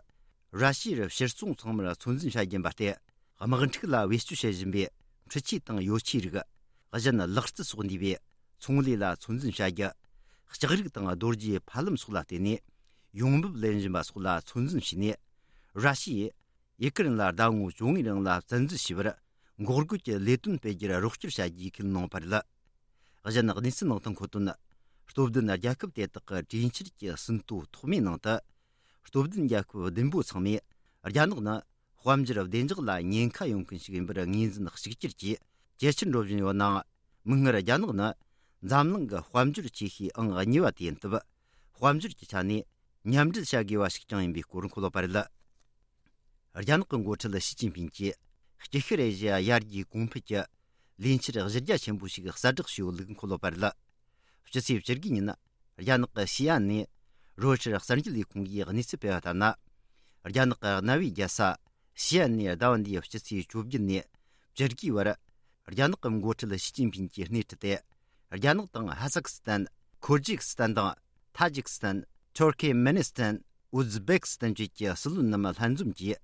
ར་ཤི་ཡར་ཕྱིར་ཚོང་ཚང་མར་ཚོད་འཛིན་བྱ་རྒྱུ་ཡིན་པ་སྟེ། དམག་འཁྲུག་ལ་བེད་སྤྱོད་བྱེད་བཞིན་པའི་འཕྲུལ་ཆས་དང་ཡོ་ཆས་རིགས། གཞན་ལག་རྩལ་སོགས་འདུས་པའི་ཚོང་ལས་ལ་ཚོད་འཛིན་བྱ་རྒྱུ། ལྕགས་རིགས་དང་རྡོ་རྗེ་ཕབ་ལེན་སོགས་ལ་བརྟེན་ནས་ཡོང་འབབ་ལེན་བཞིན་པ་སོགས་ལ་ཚོད་འཛིན་བྱས་ནས། ར་ཤི་ཡས་ཡུ་ཀེ་རེན་ལ་ཟླ་ངོ་བཅོ་ལྔའི་རིང་ལ་བཙན་འཛུལ་བྱས་པར་འགོག་རྒོལ་གྱི་ལས་དོན་སྤེལ་རྒྱུར་རོགས་སྐྱོར་བྱ་རྒྱུའི་ཁས་ལེན་གནང་བ་རེད། གཞན་གནས་ཚུལ་ནང་དུ་འཁོད་དོན། སྟོབས་ལྡན་རྒྱལ་ཁབ་དེ་དག་གི་གྲོས་འཆར་གྱི་ཟིན་ཐོ་ཐོག་མའི་ནང་དུ། སྟོབས་ལྡན་རྒྱལ་ཁབ་བདུན་པོ་ཚང་མས་རྒྱ་ནག་ནི་དཔལ་འབྱོར་བདེ་འཇགས་ལ་ཉེན་ཁ་ཡོང་མཁན་ཞིག་ཡིན་པར་ངོས་འཛིན་གཅིག་གྱུར་གྱིས་ཇེ་ཆེར་འགྲོ་བཞིན་ཡོད་ནའང་། མིག་སྔར་རྒྱ་ནག་ནི་འཛམ་གླིང་གི་དཔལ་འབྱོར་ཆེ་ཤོས་ཨང་གཉིས་པ་དེ་ཡིན་སྟབས། དཔལ་འབྱོར་གྱི་ཆ་ནས་མཉམ་འབྲེལ་བྱ་དགོས་པ་ཞིག་ཀྱང་ཡིན་པའི་སྐོར་འཁོད་ཡོད་པ་རེད། རྒྱ་ནག་གི་འགོ་ཁྲིད་ཞི་ཅིན་ཕིང་གིས་དཀྱིལ་ཤར་ཨེ་ཤི་ཡ་ཡར་རྒྱས་གོང་འཕེལ་གྱི་ལས་འཆར་གཞི་རྒྱ་ཆེན་པོ་ཞིག་གསལ་བསྒྲགས་བྱས་ཡོད་ལུགས་འཁོད་ཡོད་པ་རེད། སྤྱི་ཚེས་བཅུ་དགུ་ཉིན། རྒྱ་ནག་གི་ཤི་ཨན་ནས་རོའི་ཊར་གསར་འགྱུར་ལས་ཁུངས་ཀྱིས་གནས་ཚུལ་སྤེལ་བ་ལྟར་ན། རྒྱ་ནག་གི་གནའ་བོའི་རྒྱལ་ས་ཤི་ཨན་ནས་ཟླ་བ་འདིའི་སྤྱི་ཚེས་བཅོ་བརྒྱད་ནས་བཅུ་དགུའི་བར། རྒྱ་ནག་གི་འགོ་ཁྲིད་ཞི་ཅིན་ཕིང་གིས་སྣེ་ཁྲིད་དེ། རྒྱ་ནག་དང་ཧ་སག་སི་ཐན། ཁུར་ཇི་སི་ཐན་དང་། ཐ་ཇིག་སི་ཐན། ཐུར་ཁེ་མེ་ནི་སི་ཐན། ཨུ་ཛི་བེག་སི་ཐན་བཅས་ཀྱི་སྲིད་བློན་རྣམས་ལྷན་འཛོམས་ཀྱིས།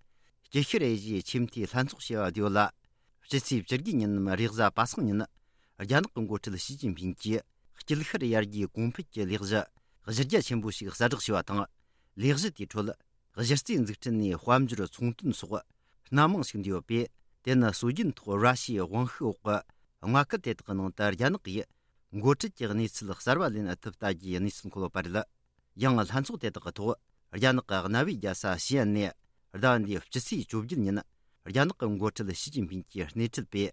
དཀྱིལ་ཤར་ཨེ་ཤི་ཡའི་ཆེས་མཐོའི་ལྷན་ཚོགས་ཞེས་པ་བསྡུས་ཡོད་ལ། སྤྱི་ཚེས་བཅུ་དགུ་ཉིན་ནམ་རེས་གཟའ་པ་སངས་ཉིན། རྒྱ་ནག་གི་འགོ་ཁྲིད་ཞི་ཅིན་ཕིང་གིས་དཀྱིལ་ཤར་ཡར་རྒྱས་གོང་འཕེལ་གྱི་ལས་གཞི་གཞི་རྒྱ་ཆེན་པོ་ཞིག་གསལ་བསྒྲགས་བྱས་པ་དང་། ལས་གཞི་དེའི་ཁྲོད། གཞི་རྩའི་འཛུགས་སྐྲུན་ནས་དཔལ་འབྱོར་ཚོང་དོན་སོགས་སྣ་མང་ཞིག་འདུས་ཡོད་པས། དེ་ནི་སྲོལ་རྒྱུན་ཐོག་ར་ཤི་ཡའི་དབང་ཤུགས་འོག་གི་མངའ་ཁུལ་དེ་དག་གི་ནང་དུ་རྒྱ་ནག་གིས་འགོ་ཁྲིད་ཀྱི་གནས་ཚུལ་གསར་བ་ལེན་ཐུབ་ལྟ་རྒྱུའི་གནས་ཚུལ་འཁོད་ཡོད་པ་རེད། ཡང་ལྷན་ཚོགས་དེ་དག་གི་ཐོག་རྒྱ་ནག་གི་གནའ་བོའི་རྒྱལ་ས་ཞི་ཨན་ནས་ཟླ་བ་འདིའི་སྤྱི་ཚེས་བཅོ་བརྒྱད་ཉིན་རྒྱ་ནག་གི་འགོ་ཁྲིད་ཞི་ཅིན་ཕིང་གིས་སྣེ་ཁྲིད་པའི་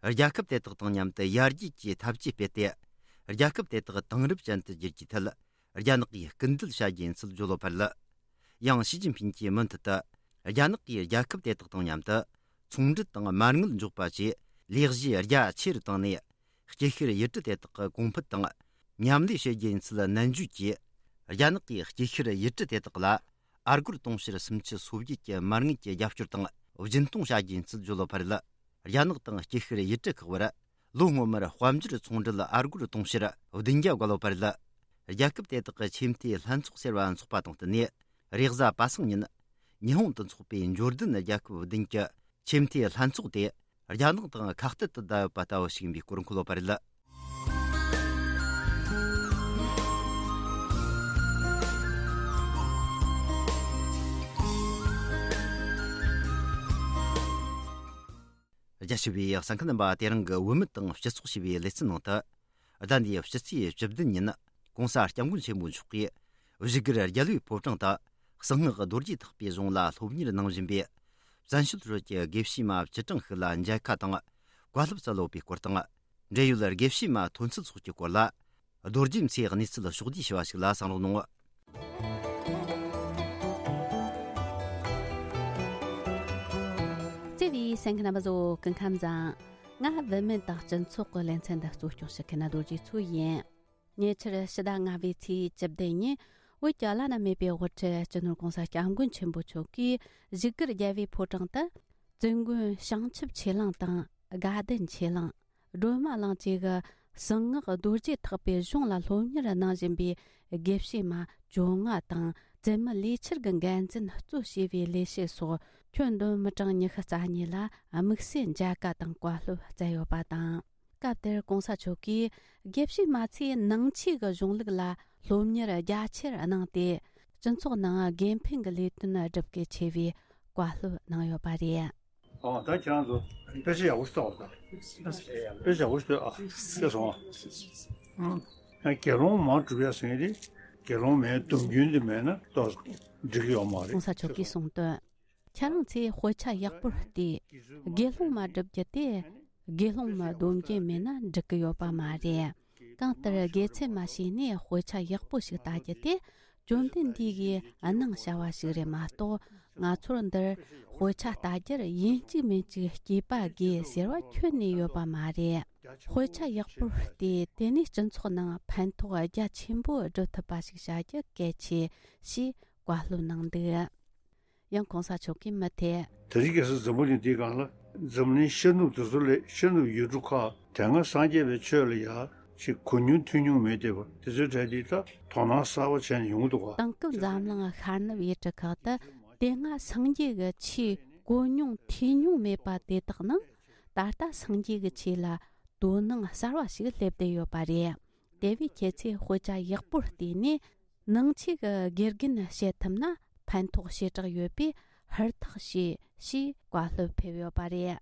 རྒྱལ་ཁབ་དེ་དག་དང་མཉམ་དུ་ཡར་རྒྱས་ཀྱི་འཐབ་ཇུས་སྤེལ་ཏེ། རྒྱལ་ཁབ་དེ་དག་དེང་རབས་ཅན་དུ་བསྒྱུར་རྒྱུའི་ཐད། རྒྱ་ནག་གིས་སྐུལ་འདེད་བྱ་རྒྱུ་ཡིན་ཚུལ་བརྗོད་ཡོད་པ་རེད། ཡང་ཞི་ཅིན་ཕིང་གིས་མུ་མཐུད་དུ། རྒྱ་ནག་གིས་རྒྱལ་ཁབ་དེ་དག་དང་མཉམ་དུ། ཚོང་འབྲེལ་དང་མ་དངུལ་འཇོག་པ་བཅས་ལས་གཞི་རྒྱ་ཆེ་རུ་བཏང་ནས། དཀྱིལ་ཤར་ཡུལ་གྲུ་དེ་དག་གི་གོང་འཕེལ་དང་། མཉམ་ལས་བྱེད་རྒྱུ་ཡིན་ཚུལ་ནན་བརྗོད་ཀྱིས། རྒྱ་ནག་གིས་དཀྱིལ་ཤར་ཡུལ་གྲུ་དེ་དག་ལ། ཨ་སྒོར་དུང་ཕྱུར་སུམ་ཅུ་སོ་བརྒྱད་ཀྱི་མ་དངུལ་གྱི་རྒྱབ་སྐྱོར་དང་། སྦྱིན་གཏོང་བྱ་རྒྱུ་ཡིན་ཚུལ་བརྗོད་ཡོད་པ་རེད། རྒྱ་ནག་དང་དཀྱིལ་ཤར་ཡུལ་གྲུ་ཁག་བར། ལོ་སྔོན་མར་དཔལ་འབྱོར་ཚོང་འབྲེལ་ཨ་སྒོར་དུང་ཕྱུར་བདུན་བརྒྱ་བརྒལ་ཡོད་པ་རེད། རྒྱལ་ཁབ་དེ་དག་གི་ཆེས་མཐོའི་ལྷན་ཚོགས་ཟེར་བ་འཚོགས་པ་དང་བསྟུན་ནས། རེས་གཟའ་པ་སངས་ཉིན། ཉི་ཧོང་དུ་འཚོགས་པའི་འབྱོར་ལྡན་རྒྱལ་ཁབ་བདུན་གྱི་ཆེས་མཐོའི་ལྷན་ཚོགས་དེ། རྒྱ་ནག་དང་ཁ་གཏད་དུ་བསྡད་ཡོད་པ་ལྟ་བུ་ཞིག་ཡིན་པའི་སྐོར་འཁོད་ཡོད་པ་རེད། རྒྱ་ཆེ་བའི་གསན་མཁན་རྣམ་པ། དེ་རིང་གི་བུད་མེད་དང་སྤྱི་ཚོགས་ཞེས་པའི་ལེ་ཚན་ནང་དུ། ཟླ་འདིའི་སྤྱི་ཚེས་བཅུ་བདུན་ཉིན། ྋགོང་ས་ྋསྐྱབས་མགོན་ཆེན་པོ་མཆོག་གིས་བཞུགས་སྒར་རྒྱལ་བའི་ཕོ་བྲང་དུ། གསང་སྔགས་རྡོ་རྗེ་ཐེག་པའི་གཞུང་ལ་སློབ་གཉེར་གནང་བཞིན་པའི་བཙན་བྱོལ་ཁུལ་གྱི་དགེ་བཤེས་མ་བཅུ་གྲངས་ཤིག་ལ་མཇལ་ཁ་དང་བཀའ་སློབ་སྩལ་ཡོད་པའི་སྐོར་དང་། འབྲེལ་ཡོད་དགེ་བཤེས་མ་ཐོན་ཚུལ་སོགས་ཀྱི་སྐོར་ལ། རྡོ་རྗེ་མཚོས་གནས་ཚུལ་ཕྱོགས་བསྡུས་ཞུ་བ་ཞིག་ལ་གསན་རོགས་གནང་། བརྩེ་བའི་གསན་མཁན་རྣམ་པ་ཚོ། སྐུ་ཁམས་བཟང་། ང་བུད་མེད་དང་སྤྱི་ཚོགས་ཀྱི་ལེ་ཚན་འདི་གཙོ་སྐྱོང་བྱེད་མཁན་རྡོ་རྗེ་མཚོ་ཡིན། ཉེ་ཆར་ཕྱི་ཟླ་ལྔ་པའི་ཚེས་བཅུ་བདུན་ཉིན། བོད་ཀྱི་བླ་ན་མེད་པའི་དབུ་ཁྲིད་སྤྱི་ནོར་༧གོང་ས་༧སྐྱབས་མགོན་ཆེན་པོ་མཆོག་གིས་བཞུགས་སྒར་རྒྱལ་བའི་ཕོ་བྲང་དུ། བཙུན་དགོན་བྱང་ཆུབ་ཆོས་གླིང་དང་དགའ་ལྡན་ཆོས་གླིང་། སྒྲོལ་མ་གླིང་བཅས་ཀྱི་གསང་སྔགས་རྡོ་རྗེ་ཐེག་པའི་གཞུང་ལ་སློབ་གཉེར་གནང་བཞིན་པའི་དགེ་བཤེས་མ་བཅོ་ལྔ་དང་། བཙུན་མ་ལས་འཆར་གྱི་འགན་འཛིན་གཙོ་བྱས་པའི་ལས་བྱེད་སོགས་ཁྱོན་བསྡོམས་མི་གྲངས་ཉི་ཤུ་རྩ་གཉིས་ལ་དམིགས་བསལ་མཇལ་ཁ་དང་བཀའ་སློབ་སྩལ་ཡོད་པ་དང་། སྐབས་དེར་༧གོང་ས་མཆོག་གིས་དགེ་བཤེས་མ་ཚོས་ནང་ཆོས་ཀྱི་གཞུང་ལུགས་ལ་སློབ་གཉེར་རྒྱ་ཆེར་གནང་སྟེ། སྤྱི་ཚོགས་ནང་དགེ་འཕེལ་གྱི་ལས་དོན་བསྒྲུབ་གལ་ཆེ་བའི་བཀའ་སློབ་གནང་ཡོད་པ་རེད། ཨ། ད་ཁྱེད་རང་ཚོ་དཔེ་ཆ་ཡག་པོ་ཞིག་ལྟ་བ་དང་། དཔེ་ཆ་ཡག་པོ་ཞིག་ལྟོས་ཨ། ཤེས་སོང་ཨ། ཨ། དགེ་སློང་མ་སྒྲུབ་ཡ་ཟེར་མཁན་དེ་དགེ་སློང་མའི་སྡོམ་རྒྱུན་དེ་མེད་ན་ཏོག་ཙམ་འགྲིག་གི་ཡོད་མ་རེད། ༸གོང་ས་མཆོག་གིས་གསུངས་དོན། ཁྱེད་རང་ཚོས་དཔེ་ཆ་ཡག་པོར་བལྟས། དགེ་སློང་མ་བསྒྲུབ་རྒྱུ་དེ་དགེ་སློང་མའི་སྡོམ་རྒྱུན་མེད་ན་འགྲིག་གི་ཡོད་པ་མ་རེད། གང་ལྟར་དགེ་ཚུལ་མ་བྱས་ནས་དཔེ་ཆ་ཡག་པོ་ཞིག་ལྟ་རྒྱུ་དེ་བཅོམ་ལྡན་འདས་ཀྱིས་གནང་བྱ་བ་ཞིག་རེད་མ་གཏོགས། ང་ཚོར་འདིར་དཔེ་ཆ་ལྟ་རྒྱུར་ཡིན་གཅིག་མིན་གཅིག་སྐྱེས་པ་དགོས་ཟེར་བ་ཁྱོན་ནས་ཡོད་པ་མ་རེད། དཔེ་ཆ་ཡག་པོར་བལྟས། དེ་ནས་སྤྱི་ཚོགས་ནང་ཕན་ཐོགས་རྒྱ་ཆེན་པོ་སྒྲུབ་ཐུབ་པ་ཞིག་བྱ་རྒྱུ་གལ་ཆེ་ཞེས་བཀའ་སློབ་གནང་འདུག་ཡང་༸གོང་ས་མཆོག་གིས་མུ་མཐུད། དེ་རིང་ཁ་སང་འཛམ་བུ་གླིང་འདིའི་སྒང་ལ་འཛམ་གླིང་ཤར་ནུབ་དེ་ཚོ་ལས་ཤར་ནུབ་ཡུལ་གྲུ་ཁག་དེ་སྔ་སངས་རྒྱས་པའི་ཆོས་ལ་ཡ་ཅིག་གོ་མྱོང་ཐོས་མྱོང་མེད་བསྡད་པ་དེ་ཚོའི་གྲས་འདི་ད་དོ་སྣང་གསར་པ་བྱས་ནས་ཡོང་གི་འདུག་ག་དེང་སྐབས་འཛམ་གླིང་ཤར་ནུབ་ཡུལ་གྲུ་ཁག་ཏུ་དེ་སྔ་སངས་རྒྱས་ཀྱི་ཆོས་གོ་མྱོང་ཐོས་མྱོང་མེད་པ་དེ་དག་ནང་ད་ལྟ་སངས་རྒྱས་ཀྱི་ཆོས་ལ་དོ་སྣང་གསར་བ་ཞིག་སླེབས་བསྡད་ཡོད་པ་རེད། དེ་བས་ཁྱེད་ཚོས་དཔེ་ཆ་ཡག་པོར་བལྟས་ནས། ནང་ཆོས་ཀྱི་དགེ་རྒན་བྱེད་ཐུབ་ན་ཕན་ཐོགས་ཞེ་དྲག་ཡོད་པས་ཧུར་ཐག་བྱོས་ཞེས་བཀའ་སློབ་ཕེབས་ཡོད་པ་རེད།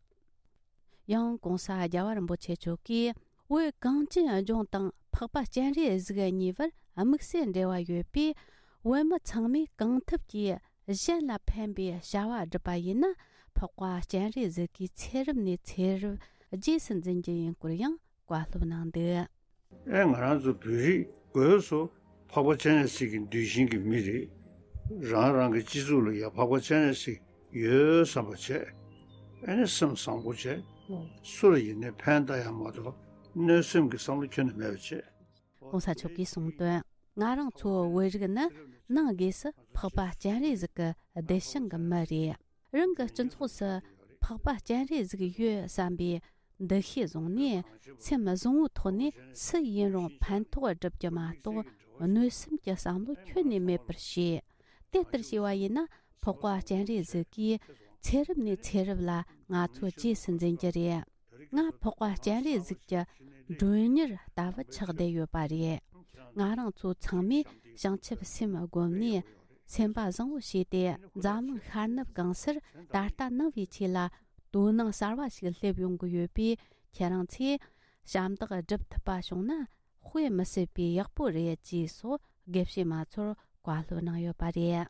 ཡང་༸གོང་ས་༸རྒྱལ་བ་རིན་པོ་ཆེ་མཆོག་གིས། བོད་གངས་ཅན་ལྗོངས་དང་འཕགས་པ་སྤྱན་རས་གཟིགས་གཉིས་བར་དམིགས་བསལ་འབྲེལ་བ་ཡོད་པས། བོད་མི་ཚང་མས་གང་ཐུབ་ཀྱིས་གཞན་ལ་ཕན་པའི་བྱ་བ་བསྒྲུབས་པ་ཡིན་ན། འཕགས་པ་སྤྱན་རས་གཟིགས་ཀྱི་ཚེ་རབས་ནས་ཚེ་རབས་རྗེས་སུ་འཛིན་རྒྱུ་ཡིན་སྐོར་ཡང་བཀའ་སློབ་གནང་འདུག་ཨེ། ང་རང་ཚོ་བོད་རིགས་སྒོས་སུ་འཕགས་པ་སྤྱན་རས་གཟིགས་ཀྱི་གདུལ་ཞིང་གི་མི་རེད། རང་རང་གི་སྤྱི་ཚོགས་ལ་ཡང་འཕགས་པ་སྤྱན་རས་གཟིགས་ཡོད་བསམ་པ་བྱས། ཨེ་ནི་སེམས་བཟང་པོ་བྱས། སུ་ལ་ཡིན་ནའི་ཕན་བཏགས་ཡ་མ་གཏོགས་གནོད་སེམས་ཀྱི་བསམ་བློ་ཁྱོན་ནས་མེད་པ་བྱས། ༸གོང་ས་མཆོག་གིས་གསུངས་དོན། ང་རང་ཚོ་བོད་རིགས་ནི་ནང་སྒོས་སུ་འཕགས་པ་སྤྱན་རས་གཟིགས་ཀྱི་གདུལ་ཞིང་གི་མི་རེད། རང་གི་སྤྱི་ཚོགས་སུ་འཕགས་པ་སྤྱན་རས་གཟིགས་ཡོད་བསམ་པའི་འདུ་ཤེས་བཟུང་ནས། སེམས་བཟང་བོའི་ཐོག་ནས་སུ་ཡིན་རུང་ཕན་ཐོགས་བསྒྲུབ་རྒྱུ་མ་གཏོགས། གནོད་སེམས་ཀྱི་བསམ་བློ་ཁྱོན་ནས་མེད་པར་བྱས། དེ་ལྟར་བྱས་པ་ཡིན་ན། འཕགས་པ་སྤྱན་རས་གཟིགས་ཀྱིས་ཚེ་རབས་ནས་ཚེ་རབས་ལ་ང་ཚོ་རྗེས་སུ་འཛིན་རྒྱུ་རེད། ང་འཕགས་པ་སྤྱན་རས་གཟིགས་ཀྱི་མགྲོན་གཉེར་ལྟ་བུ་ཆགས་བསྡད་ཡོད་པ་རེད། ང་རང་ཚོ་ཚང་མས་བྱང་ཆུབ་སེམས་བསྒོམས་ནས། སེམས་པ་བཟང་བོ་བྱས་ཏེ། འཛམ་གླིང་ཤར་ནུབ་གང་སར་ད་ལྟ་ནང་བའི་ཆོས་ལ་དོ་སྣང་གསར་བ་ཞིག་སླེབས་ཡོང་གི་ཡོད་པས། ཁྱེད་རང་ཚོས་ཞབས་འདེགས་སྒྲུབ་ཐུབ་པ་བྱུང་ན། དཔེ་མི་སྲིད་པའི་ཡག་པོ་རེད་ཅེས་སོགས་དགེ་བཤེས་མ་ཚོར་བཀའ་སློབ་གནང་ཡོད་པ་རེད།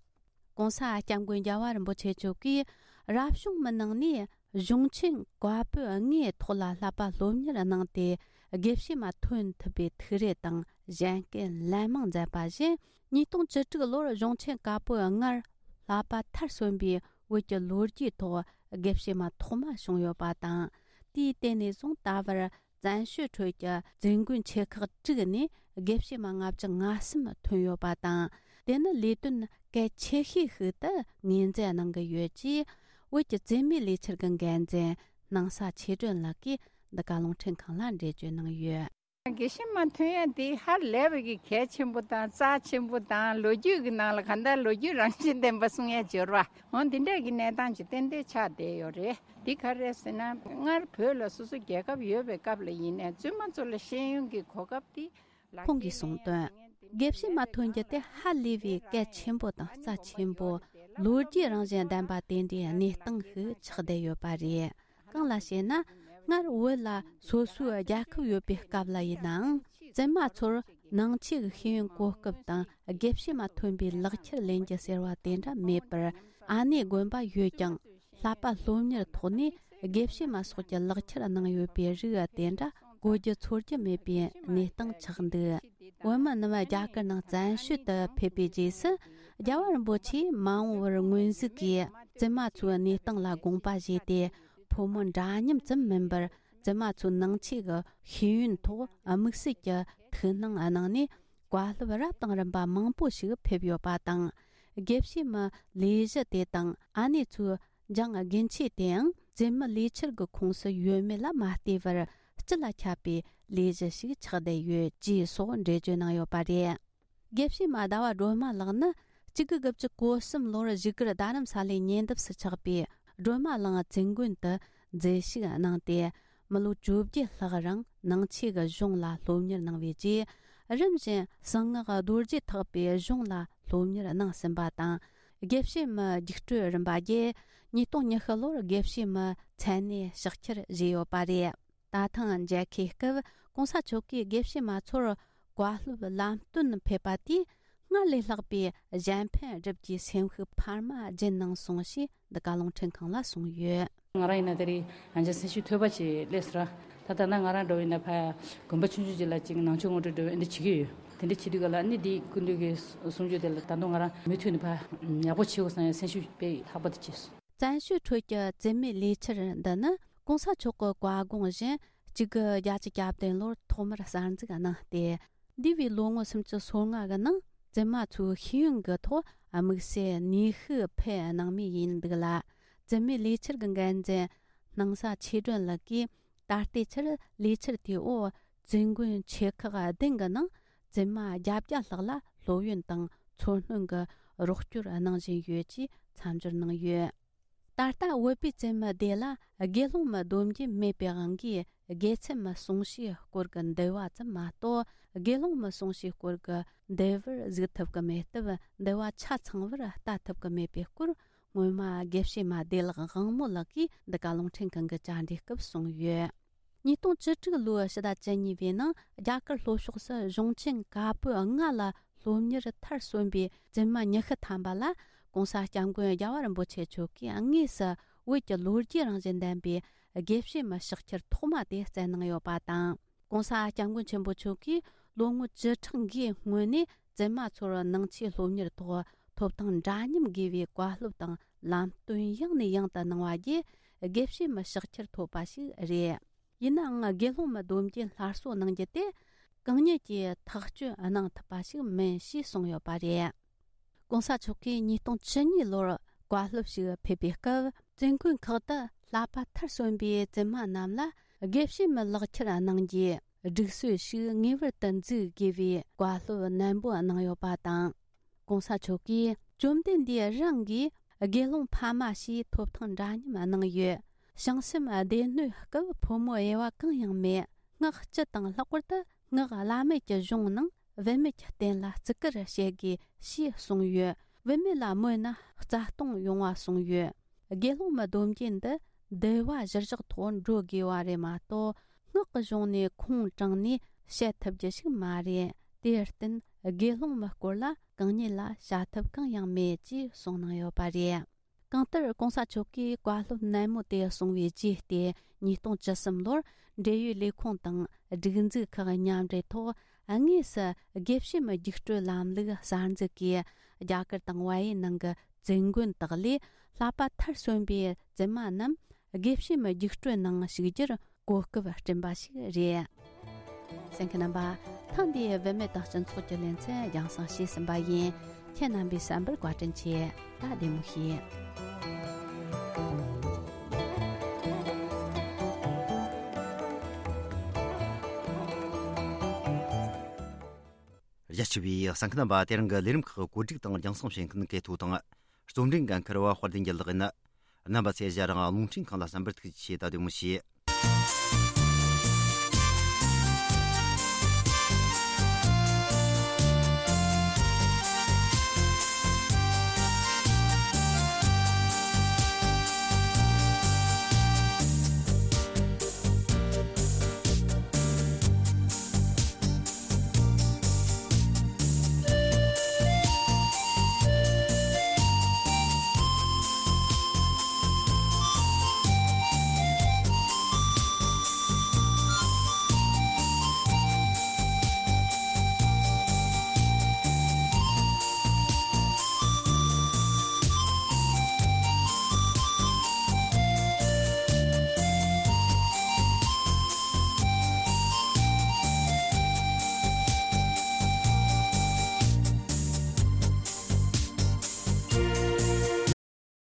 ༸གོང་ས་༸སྐྱབས་མགོན་རྒྱལ་བ་རིན་པོ་ཆེ་མཆོག་གིས། རབ་བྱུང་མི་ནང་ནས་གཞུང་ཆེན་བཀའ་པོད་ལྔའི་ཐོག་ལ་བསླབ་པ་སློབ་གཉེར་གནང་སྟེ། དགེ་བཤེས་མ་ཐོན་ཐུབ་པའི་ཐུགས་རེ་དང་གཞན་སྐད་ལན་མང་མཛད་པ་བཞིན། ཉིས་སྟོང་བཅུ་དྲུག་ལོར་གཞུང་ཆེན་བཀའ་པོད་ལྔར་བསླབ་པ་མཐར་སོན་པའི་བོད་ཀྱི་ལོ་རྒྱུས་ཐོག་དགེ་བཤེས་མ་ཐོག་མ་བྱུང་ཡོད་པ་དང་། དེའི་སྟེང་ནས་བཟུང་ད་བར། བཙན་བྱོལ་ཁྲོད་ཀྱི་བཙུན་དགོན་ཆེ་ཁག་དྲུག་ནས་དགེ་བཤེས་མ་ལྔ་བཅུ་ང་གསུམ་ཐོན་ཡོད་པ་དང་། དེ་ནི་ལས་དོན་གལ་ཆེ་ཤོས་ཤིག་ཏུ་ངོས་འཛིན་གནང་གི་ཡོད་ཅེས། བོད་ཀྱི་བཙུན་མའི་ལས་འཆར་གྱི་འགན་འཛིན་སྣང་ས་ཆོས་སྒྲོན་ལགས་ཀྱིས་འདི་ག་རླུང་འཕྲིན་ཁང་ལ་འགྲེལ་བརྗོད་གནང་ཡོད། དགེ་བཤེས་མ་ཐོན་ཡ་དེ་ཧ་ལས་པའི་གི་གལ་ཆེན་པོ་དང་རྩ་ཆེན་པོ་དང་། ལོ་རྒྱུས་ཀྱི་ནང་ལ་གང་ལྟར་ལོ་རྒྱུས་རང་བཞིན་ལྡན་པ་གསུང་ཡ་སྦྱོར་བ། འོ་འདི་འདྲ་གི་གནས་སྟངས་ཅིག་ཏན་ཏན་ཆགས་བསྡད་ཡོད་རེད། འདི་ག་རེད་ཟེར་ན། སྔར་བོད་ལ་སོ་སོ་རྒྱལ་ཁབ་ཡོད་པའི་སྐབས་ལ་ཡིན་ནའི་བཙུན་མ་ཚོ་ལ་ཤེས་ཡོན་གྱི་གོ་སྐབས་དེ་ལག་ཁྱེར་ཁོང་གིས་གསུངས་དོན། དགེ་བཤེས་མ་ཐོན་རྒྱུ་དེ་ཧ་ལས་པའི་གལ་ཆེན་པོ་དང་རྩ་ཆེན་པོ། ལོ་རྒྱུས་རང་བཞིན་ལྡན་པ་དེ་འདྲའི་གནས་སྟངས་ཤིག་ཆགས་བསྡད་ཡོད་པ་རེད། གང་ལ་ཞེ་ན། སྔར་བོད་ལ་སོ་སོའི་རྒྱལ་ཁབ་ཡོད་པའི་སྐབས་ལ་ཡིན་ནའང་། བཙུན་མ་ཚོར་ནང་ཆོས་ཀྱི་ཤེས་ཡོན་གོ་སྐབས་དང་། དགེ་བཤེས་མ་ཐོན་པའི་ལག་ཁྱེར་ལེན་རྒྱུ་ཟེར་བ་དེ་འདྲ་མེད་པར། ཨ་ནེ་དགོན་པ་ཡོད་ཀྱང་། བསླབ་པ་སློབ་གཉེར་ཐོག་ནས་དགེ་བཤེས་མ་སོགས་ཀྱི་ལག་ཁྱེར་གནང་ཡོད་པའི་རིགས་དེ་འདྲ་གོ་རྒྱུ་ཚོར་རྒྱུ་མེད་པའི་གནས་སྟངས་ཆགས་འདུག་བོད་མི་རྣམས་རྒྱ་གར་ནང་བཙན་བྱོལ་དུ་ཕེབས་པའི་རྗེས་སུ། རྒྱལ་བ་རིན་པོ་ཆེས་མ་འོངས་པར་སྔོན་གཟིགས་ཀྱིས་བཙུན་མ་ཚོའི་གནས་སྟངས་ལ་དགོངས་པ་བཞེས་ཏེ། ཕོ་མོ་འདྲ་མཉམ་ཙམ་མིན་པར། བཙུན་མ་ཚོའི་ནང་ཆོས་ཀྱི་ཤེས་ཡོན་ཐོག་དམིགས་བསལ་གྱི་ཐུགས་སྣང་གནང་ནས། བཀའ་སློབ་རབ་དང་རིམ་པ་མང་པོ་ཞིག་ཕེབས་ཡོད་པ་དང་། དགེ་བཤེས་མའི་ལས་གཞི་དེ་དང་ཨ་ནེ་ཚོའི་སྦྱང་དགེ་མཆེད་དེའང་བཙུན་མའི་ལས་འཆར་གྱི་ཁོངས་སུ་ཡོད་མེད་ལ་མ་ལྟོས་པར་སྤྱི་ལ་ཁྱབ་པའི་ལས་གཞི་ཞིག་ཆགས་བསྡད་ཡོད་ཅེས་སོགས་འགྲེལ་བརྗོད་གནང་ཡོད་པ་རེད། དགེ་བཤེས་མ་ཟླ་བ་སྒྲོལ་མ་ལགས་ནི་གཅིག་དགུ་དགུ་བཅུ་གོ་གསུམ་ལོར་བཞུགས་སྒར་རྡ་རམ་ས་ལའི་ཉེ་འདབས་སུ་ཆགས་པའི་སྒྲོལ་མ་གླིང་བཙུན་དགོན་དུ་མཛད་ཞུགས་གནང་སྟེ། མི་ལོ་བཅོ་བརྒྱད་ལྷག་རིང་ནང་ཆོས་ཀྱི་གཞུང་ལ་སློབ་གཉེར་གནང་བའི་རྗེས། རིམ་བཞིན་གསང་སྔགས་རྡོ་རྗེ་ཐེག་པའི་གཞུང་ལ་སློབ་གཉེར་གནང་ཟིན་པ་དང་། དགེ་བཤེས་མའི་རྒྱུགས་སྤྲོད་རིམ་པ་བརྒྱད། ཉིས་སྟོང་ཉི་ཤུ་ལོར་དགེ་བཤེས་མའི་མཚན་གནས་ཕྱག་འཁྱེར་བཞེས་ཡོད་པ་རེད། ད་ཐེངས་མཇལ་ཁའི་སྐབས་གོང་ས་མཆོག་གིས་དགེ་བཤེས་མ་ཚོར་བཀའ་སློབ་ལམ་སྟོན་ཕེབས་པ་དེས་སྔར་ལས་ལྷག་པའི་གཞན་ཕན་སྒྲུབ་རྒྱུའི་སེམས་ཤུགས་འཕར་མ་སྦྱིན་གནང་སོང་ཞེས་འདི་ག་རླུང་འཕྲིན་ཁང་ལ་གསུངས་ཡོད། ང་རང་ཡིན་ན་དེ་རིང་ཡང་བསྐྱར་སེམས་ཤུགས་ཐོལ་པ་ཅིག་སླེབས་སོང་ར། ད་ལྟ་ན་ང་རང་འགྲོ་བ་ཡིན་ན་ཕ་དགོན་པ་ཆུང་ཆུང་ཅིག་ལ་ཅིག་ནང་ཆོས་ངོ་སྤྲོད་འགྲོ་འདི་བྱེད་ཀྱི་ཡོད། དེ་འདྲ་བྱེད་དུས་ག་ལ་ནི་འདི་སྐུ་མདུན་གྱི་གསུང་ཆོས་དེ་ལ་ད་དུང་ང་རང་མུ་མཐུད་ནས་ཕ་ཡག་པོ་བྱེད་དགོས་བསམ་ཡང་སེམས་ཤུགས་དཔེ་ལྷག་པ་དེ་སྐྱེས་སོང་། བཙན་བྱོལ་ཁྲོད་ཀྱི་བཙུན་མའི་ལས་འཆར་འདི་ནི་གོང་ས་མཆོག་གི་བཀའ་དགོངས་བཞིན་གཅིག་དགུ་བརྒྱད་ཅུ་གྱ་བདུན་ལོར་ཐོག་མར་གསར་འཛུགས་གནང་སྟེ། འདས་པའི་ལོ་ངོ་སུམ་ཅུ་སོ་ལྔ་གི་ནང་བཙུན་མ་ཚོའི་ཤེས་ཡོན་གྱི་ཐོག་དམིགས་བསལ་ནུས་ཤུགས་འཕེལ་གནང་མུས་ཡིན་འདུག་ལ། བཙུན་མའི་ལས་འཆར་གྱི་འགན་འཛིན་སྣང་ས་ཆོས་སྒྲོན་ལགས་ཀྱིས། ད་ལྟའི་ཆར་ལས་འཆར་དེའི་འོག་བཙུན་དགོན་ཆེ་ཁག་བདུན་གྱི་ནང་བཙུན་མ་བརྒྱད་བརྒྱ་ལྷག་ལ་སློབ་ཡོན་དང་འཚོ་སྣོན་གྱི་རོགས་སྐྱོར་གནང་བཞིན་ཡོད་ཅེས་མཚམས་སྦྱོར་གནང་ཡོད། ད་ལྟ་བོད་པའི་བཙུན་མ་སྡེ་ལ་དགེ་སློང་མའི་སྡོམ་རྒྱུན་མེད་པའི་དབང་གིས་དགེ་ཚུལ་མའི་གསུང་བཤད་སྐོར་གྱི་འདུལ་བ་ཙམ་མ་གཏོགས། དགེ་སློང་མའི་གསུང་བཤད་སྐོར་གྱི་འདུལ་བར་གཟིགས་ཐུབ་ཀྱི་མེད་སྟབས། འདུལ་བ་ཆ་ཚང་བར་ལྟ་ཐུབ་ཀྱི་མེད་པའི་སྐོར། སྔོན་མ་དགེ་བཤེས་མ་བདེ་ལེགས་དབང་མོ་ལགས་ཀྱིས་འདི་ག་རླུང་འཕྲིན་ཁང་གི་བཅར་འདྲིའི་སྐབས་གསུངས་ཡོད། ཉིས་སྟོང་བཅུ་དྲུག་ལོའི་ཕྱི་ཟླ་བཅུ་གཉིས་པའི་ནང་རྒྱ་གར་ལྷོ་ཕྱོགས་སུ་གཞུང་ཆེན་བཀའ་པོད་ལྔ་ལ་སློབ་གཉེར་མཐར་སོན་པའི་བཙུན་མ་ཉི་ཤུ་ཐམ་པ་ལ་༸གོང་ས་༸སྐྱབས་མགོན་རྒྱལ་བ་རིན་པོ་ཆེ་མཆོག་གིས་དངོས་སུ་བོད་ཀྱི་ལོ་རྒྱུས་རང་བཞིན་ལྡན་པའི་དགེ་བཤེས་མའི་ཕྱག་འཁྱེར་ཐོག་མ་དེ་བསྩལ་གནང་ཡོད་པ་དང་། ༸གོང་ས་༸སྐྱབས་མགོན་ཆེན་པོ་མཆོག་གིས་ལོ་ངོ་བཅུ་ཕྲག་འགའི་སྔོན་ནས་བཙུན་མ་ཚོར་ནང་ཆོས་སློབ་གཉེར་ཐོག་ཐོབ་ཐང་འདྲ་མཉམ་དགོས་པའི་བཀའ་སློབ་དང་ལམ་སྟོན་ཡང་ནས་ཡང་དུ་གནང་བ་བརྒྱུད་དགེ་བཤེས་མའི་ཕྱག་འཁྱེར་ཐོབ་པ་ཞིག་རེད། ཡིན་ནའང་དགེ་སློང་མའི་སྡོམ་རྒྱུན་སླར་གསོ་གནང་རྒྱུ་དེ་གང་ཉིད་ཀྱིས་ཐག་གཅོད་གནང་ཐུབ་པ་ཞིག་མིན་ཞེས་གསུངས་ཡོད་པ་རེད། ༸གོང་ས་མཆོག་གིས་ཉིས་སྟོང་བཅུ་གཉིས་ལོར་བཀའ་སློབ་ཞིག་ཕེབས་པའི་སྐབས། བཙུན་དགོན་ཁག་ཏུ་བསླབ་པ་མཐར་སོན་པའི་བཙུན་མ་རྣམས་ལ་དགེ་བཤེས་མའི་ལག་ཁྱེར་གནང་རྒྱུའི་སྒྲིག་སྲོལ་ཞིག་ངེས་པར་དུ་འཛུགས་དགོས་པའི་བཀའ་སློབ་ནན་པོ་གནང་ཡོད་པ་དང་། ༸གོང་ས་མཆོག་གིས་བཅོམ་ལྡན་འདས་རང་གིས་དགེ་སློང་ཕ་མ་ཞེས་ཐོབ་ཐང་འདྲ་མཉམ་གནང་ཡོད། བྱང་སེམས་སྡེ་སྣོད་སྐབས་ཕོ་མོ་དབྱེ་བ་གང་ཡང་མེད། སྔགས་སྤྱི་དང་ལྷག་པར་དུ་སྔགས་བླ་མེད་ཀྱི་གཞུང་ནང་བུད་མེད་ཀྱི་རྟེན་ལ་བརྩི་བཀུར་བྱེད་དགོས་ཞེས་གསུངས་ཡོད། བུད་མེད་ལ་མོས་ན་རྩ་སྟོང་ཡོང་བ་གསུངས་ཡོད། དགེ་སློང་མའི་སྡོམ་རྒྱུན་འདི་འདུལ་བ་གཞིར་བཞག་ཐོག་འགྲོ་དགོས་པ་རེད་མ་གཏོགས། སྔགས་ཀྱི་གཞུང་ནས་ཁུངས་དྲངས་ནས་བཤད་ཐུབ་རྒྱུ་ཞིག་མ་རེད། དེར་བརྟེན་དགེ་སློང་མའི་སྐོར་ལ་གང་ཉིད་ལ་བྱ་ཐབས་གང་ཡང་མེད་ཅེས་གསུངས་གནང་ཡོད་པ་རེད། གང་ལྟར་༸གོང་ས་མཆོག་གིས་བཀའ་སློབ་ནན་མོ་དེ་གསུང་བའི་རྗེས་ཏེ། ཉིས་སྟོང་བཅུ་གསུམ་ལོར་འབྲེལ་ཡོད་ལས་ཁུངས་དང་སྒྲིག་འཛུགས་ཁག་མཉམ་འབྲེལ་ཐོག་དངོས་སུ་དགེ་བཤེས་མའི་རྒྱུགས་སྤྲོད་ལམ་ལུགས་གསར་འཛུགས་ཀྱིས། རྒྱ་གར་དང་བལ་ཡུལ་ནང་གི་བཙུན་དགོན་དག་ལས་བསླབ་པ་མཐར་སོན་པའི་བཙུན་མ་རྣམས་དགེ་བཤེས་མའི་རྒྱུགས་སྤྲོད་ནང་ཞུགས་རྒྱུར་གོ་སྐབས་བསྐྲུན་པ་ཞིག་རེད། གསན་མཁན་རྣམ་པ། ཐེངས་འདིའི་བུད་མེད་དང་སྤྱི་ཚོགས་ཀྱི་ལེ་ཚན་རྒྱང་སྲིང་བྱས་ཟིན་པ་ཡིན། ཁྱེད་རྣམ་པའི་བསམ་པར་བཀའ་དྲིན་ཆེ། ད་བདེ་མོ་བྱོས། རྒྱ་ཆེ་བའི་གསན་མཁན་རྣམ་པ། དེ་རིང་གི་ལས་རིམ་ཁག་གོ་སྒྲིག་དང་རྒྱང་སྲིང་བྱེད་མཁན་གལ་ཐུག་དང་། རྩོམ་སྒྲིག་འགན་འཁུར་བ་དཔལ་ལྡན་རྒྱལ་ལགས་ཡིན། རྣམ་པ་ཚོས་ཞལ་རང་རླུང་འཕྲིན་ཁང་ལ་བསམ་པར་ཐུགས་རྗེ་ཆེ། ད་བདེ་མོ་བྱོས།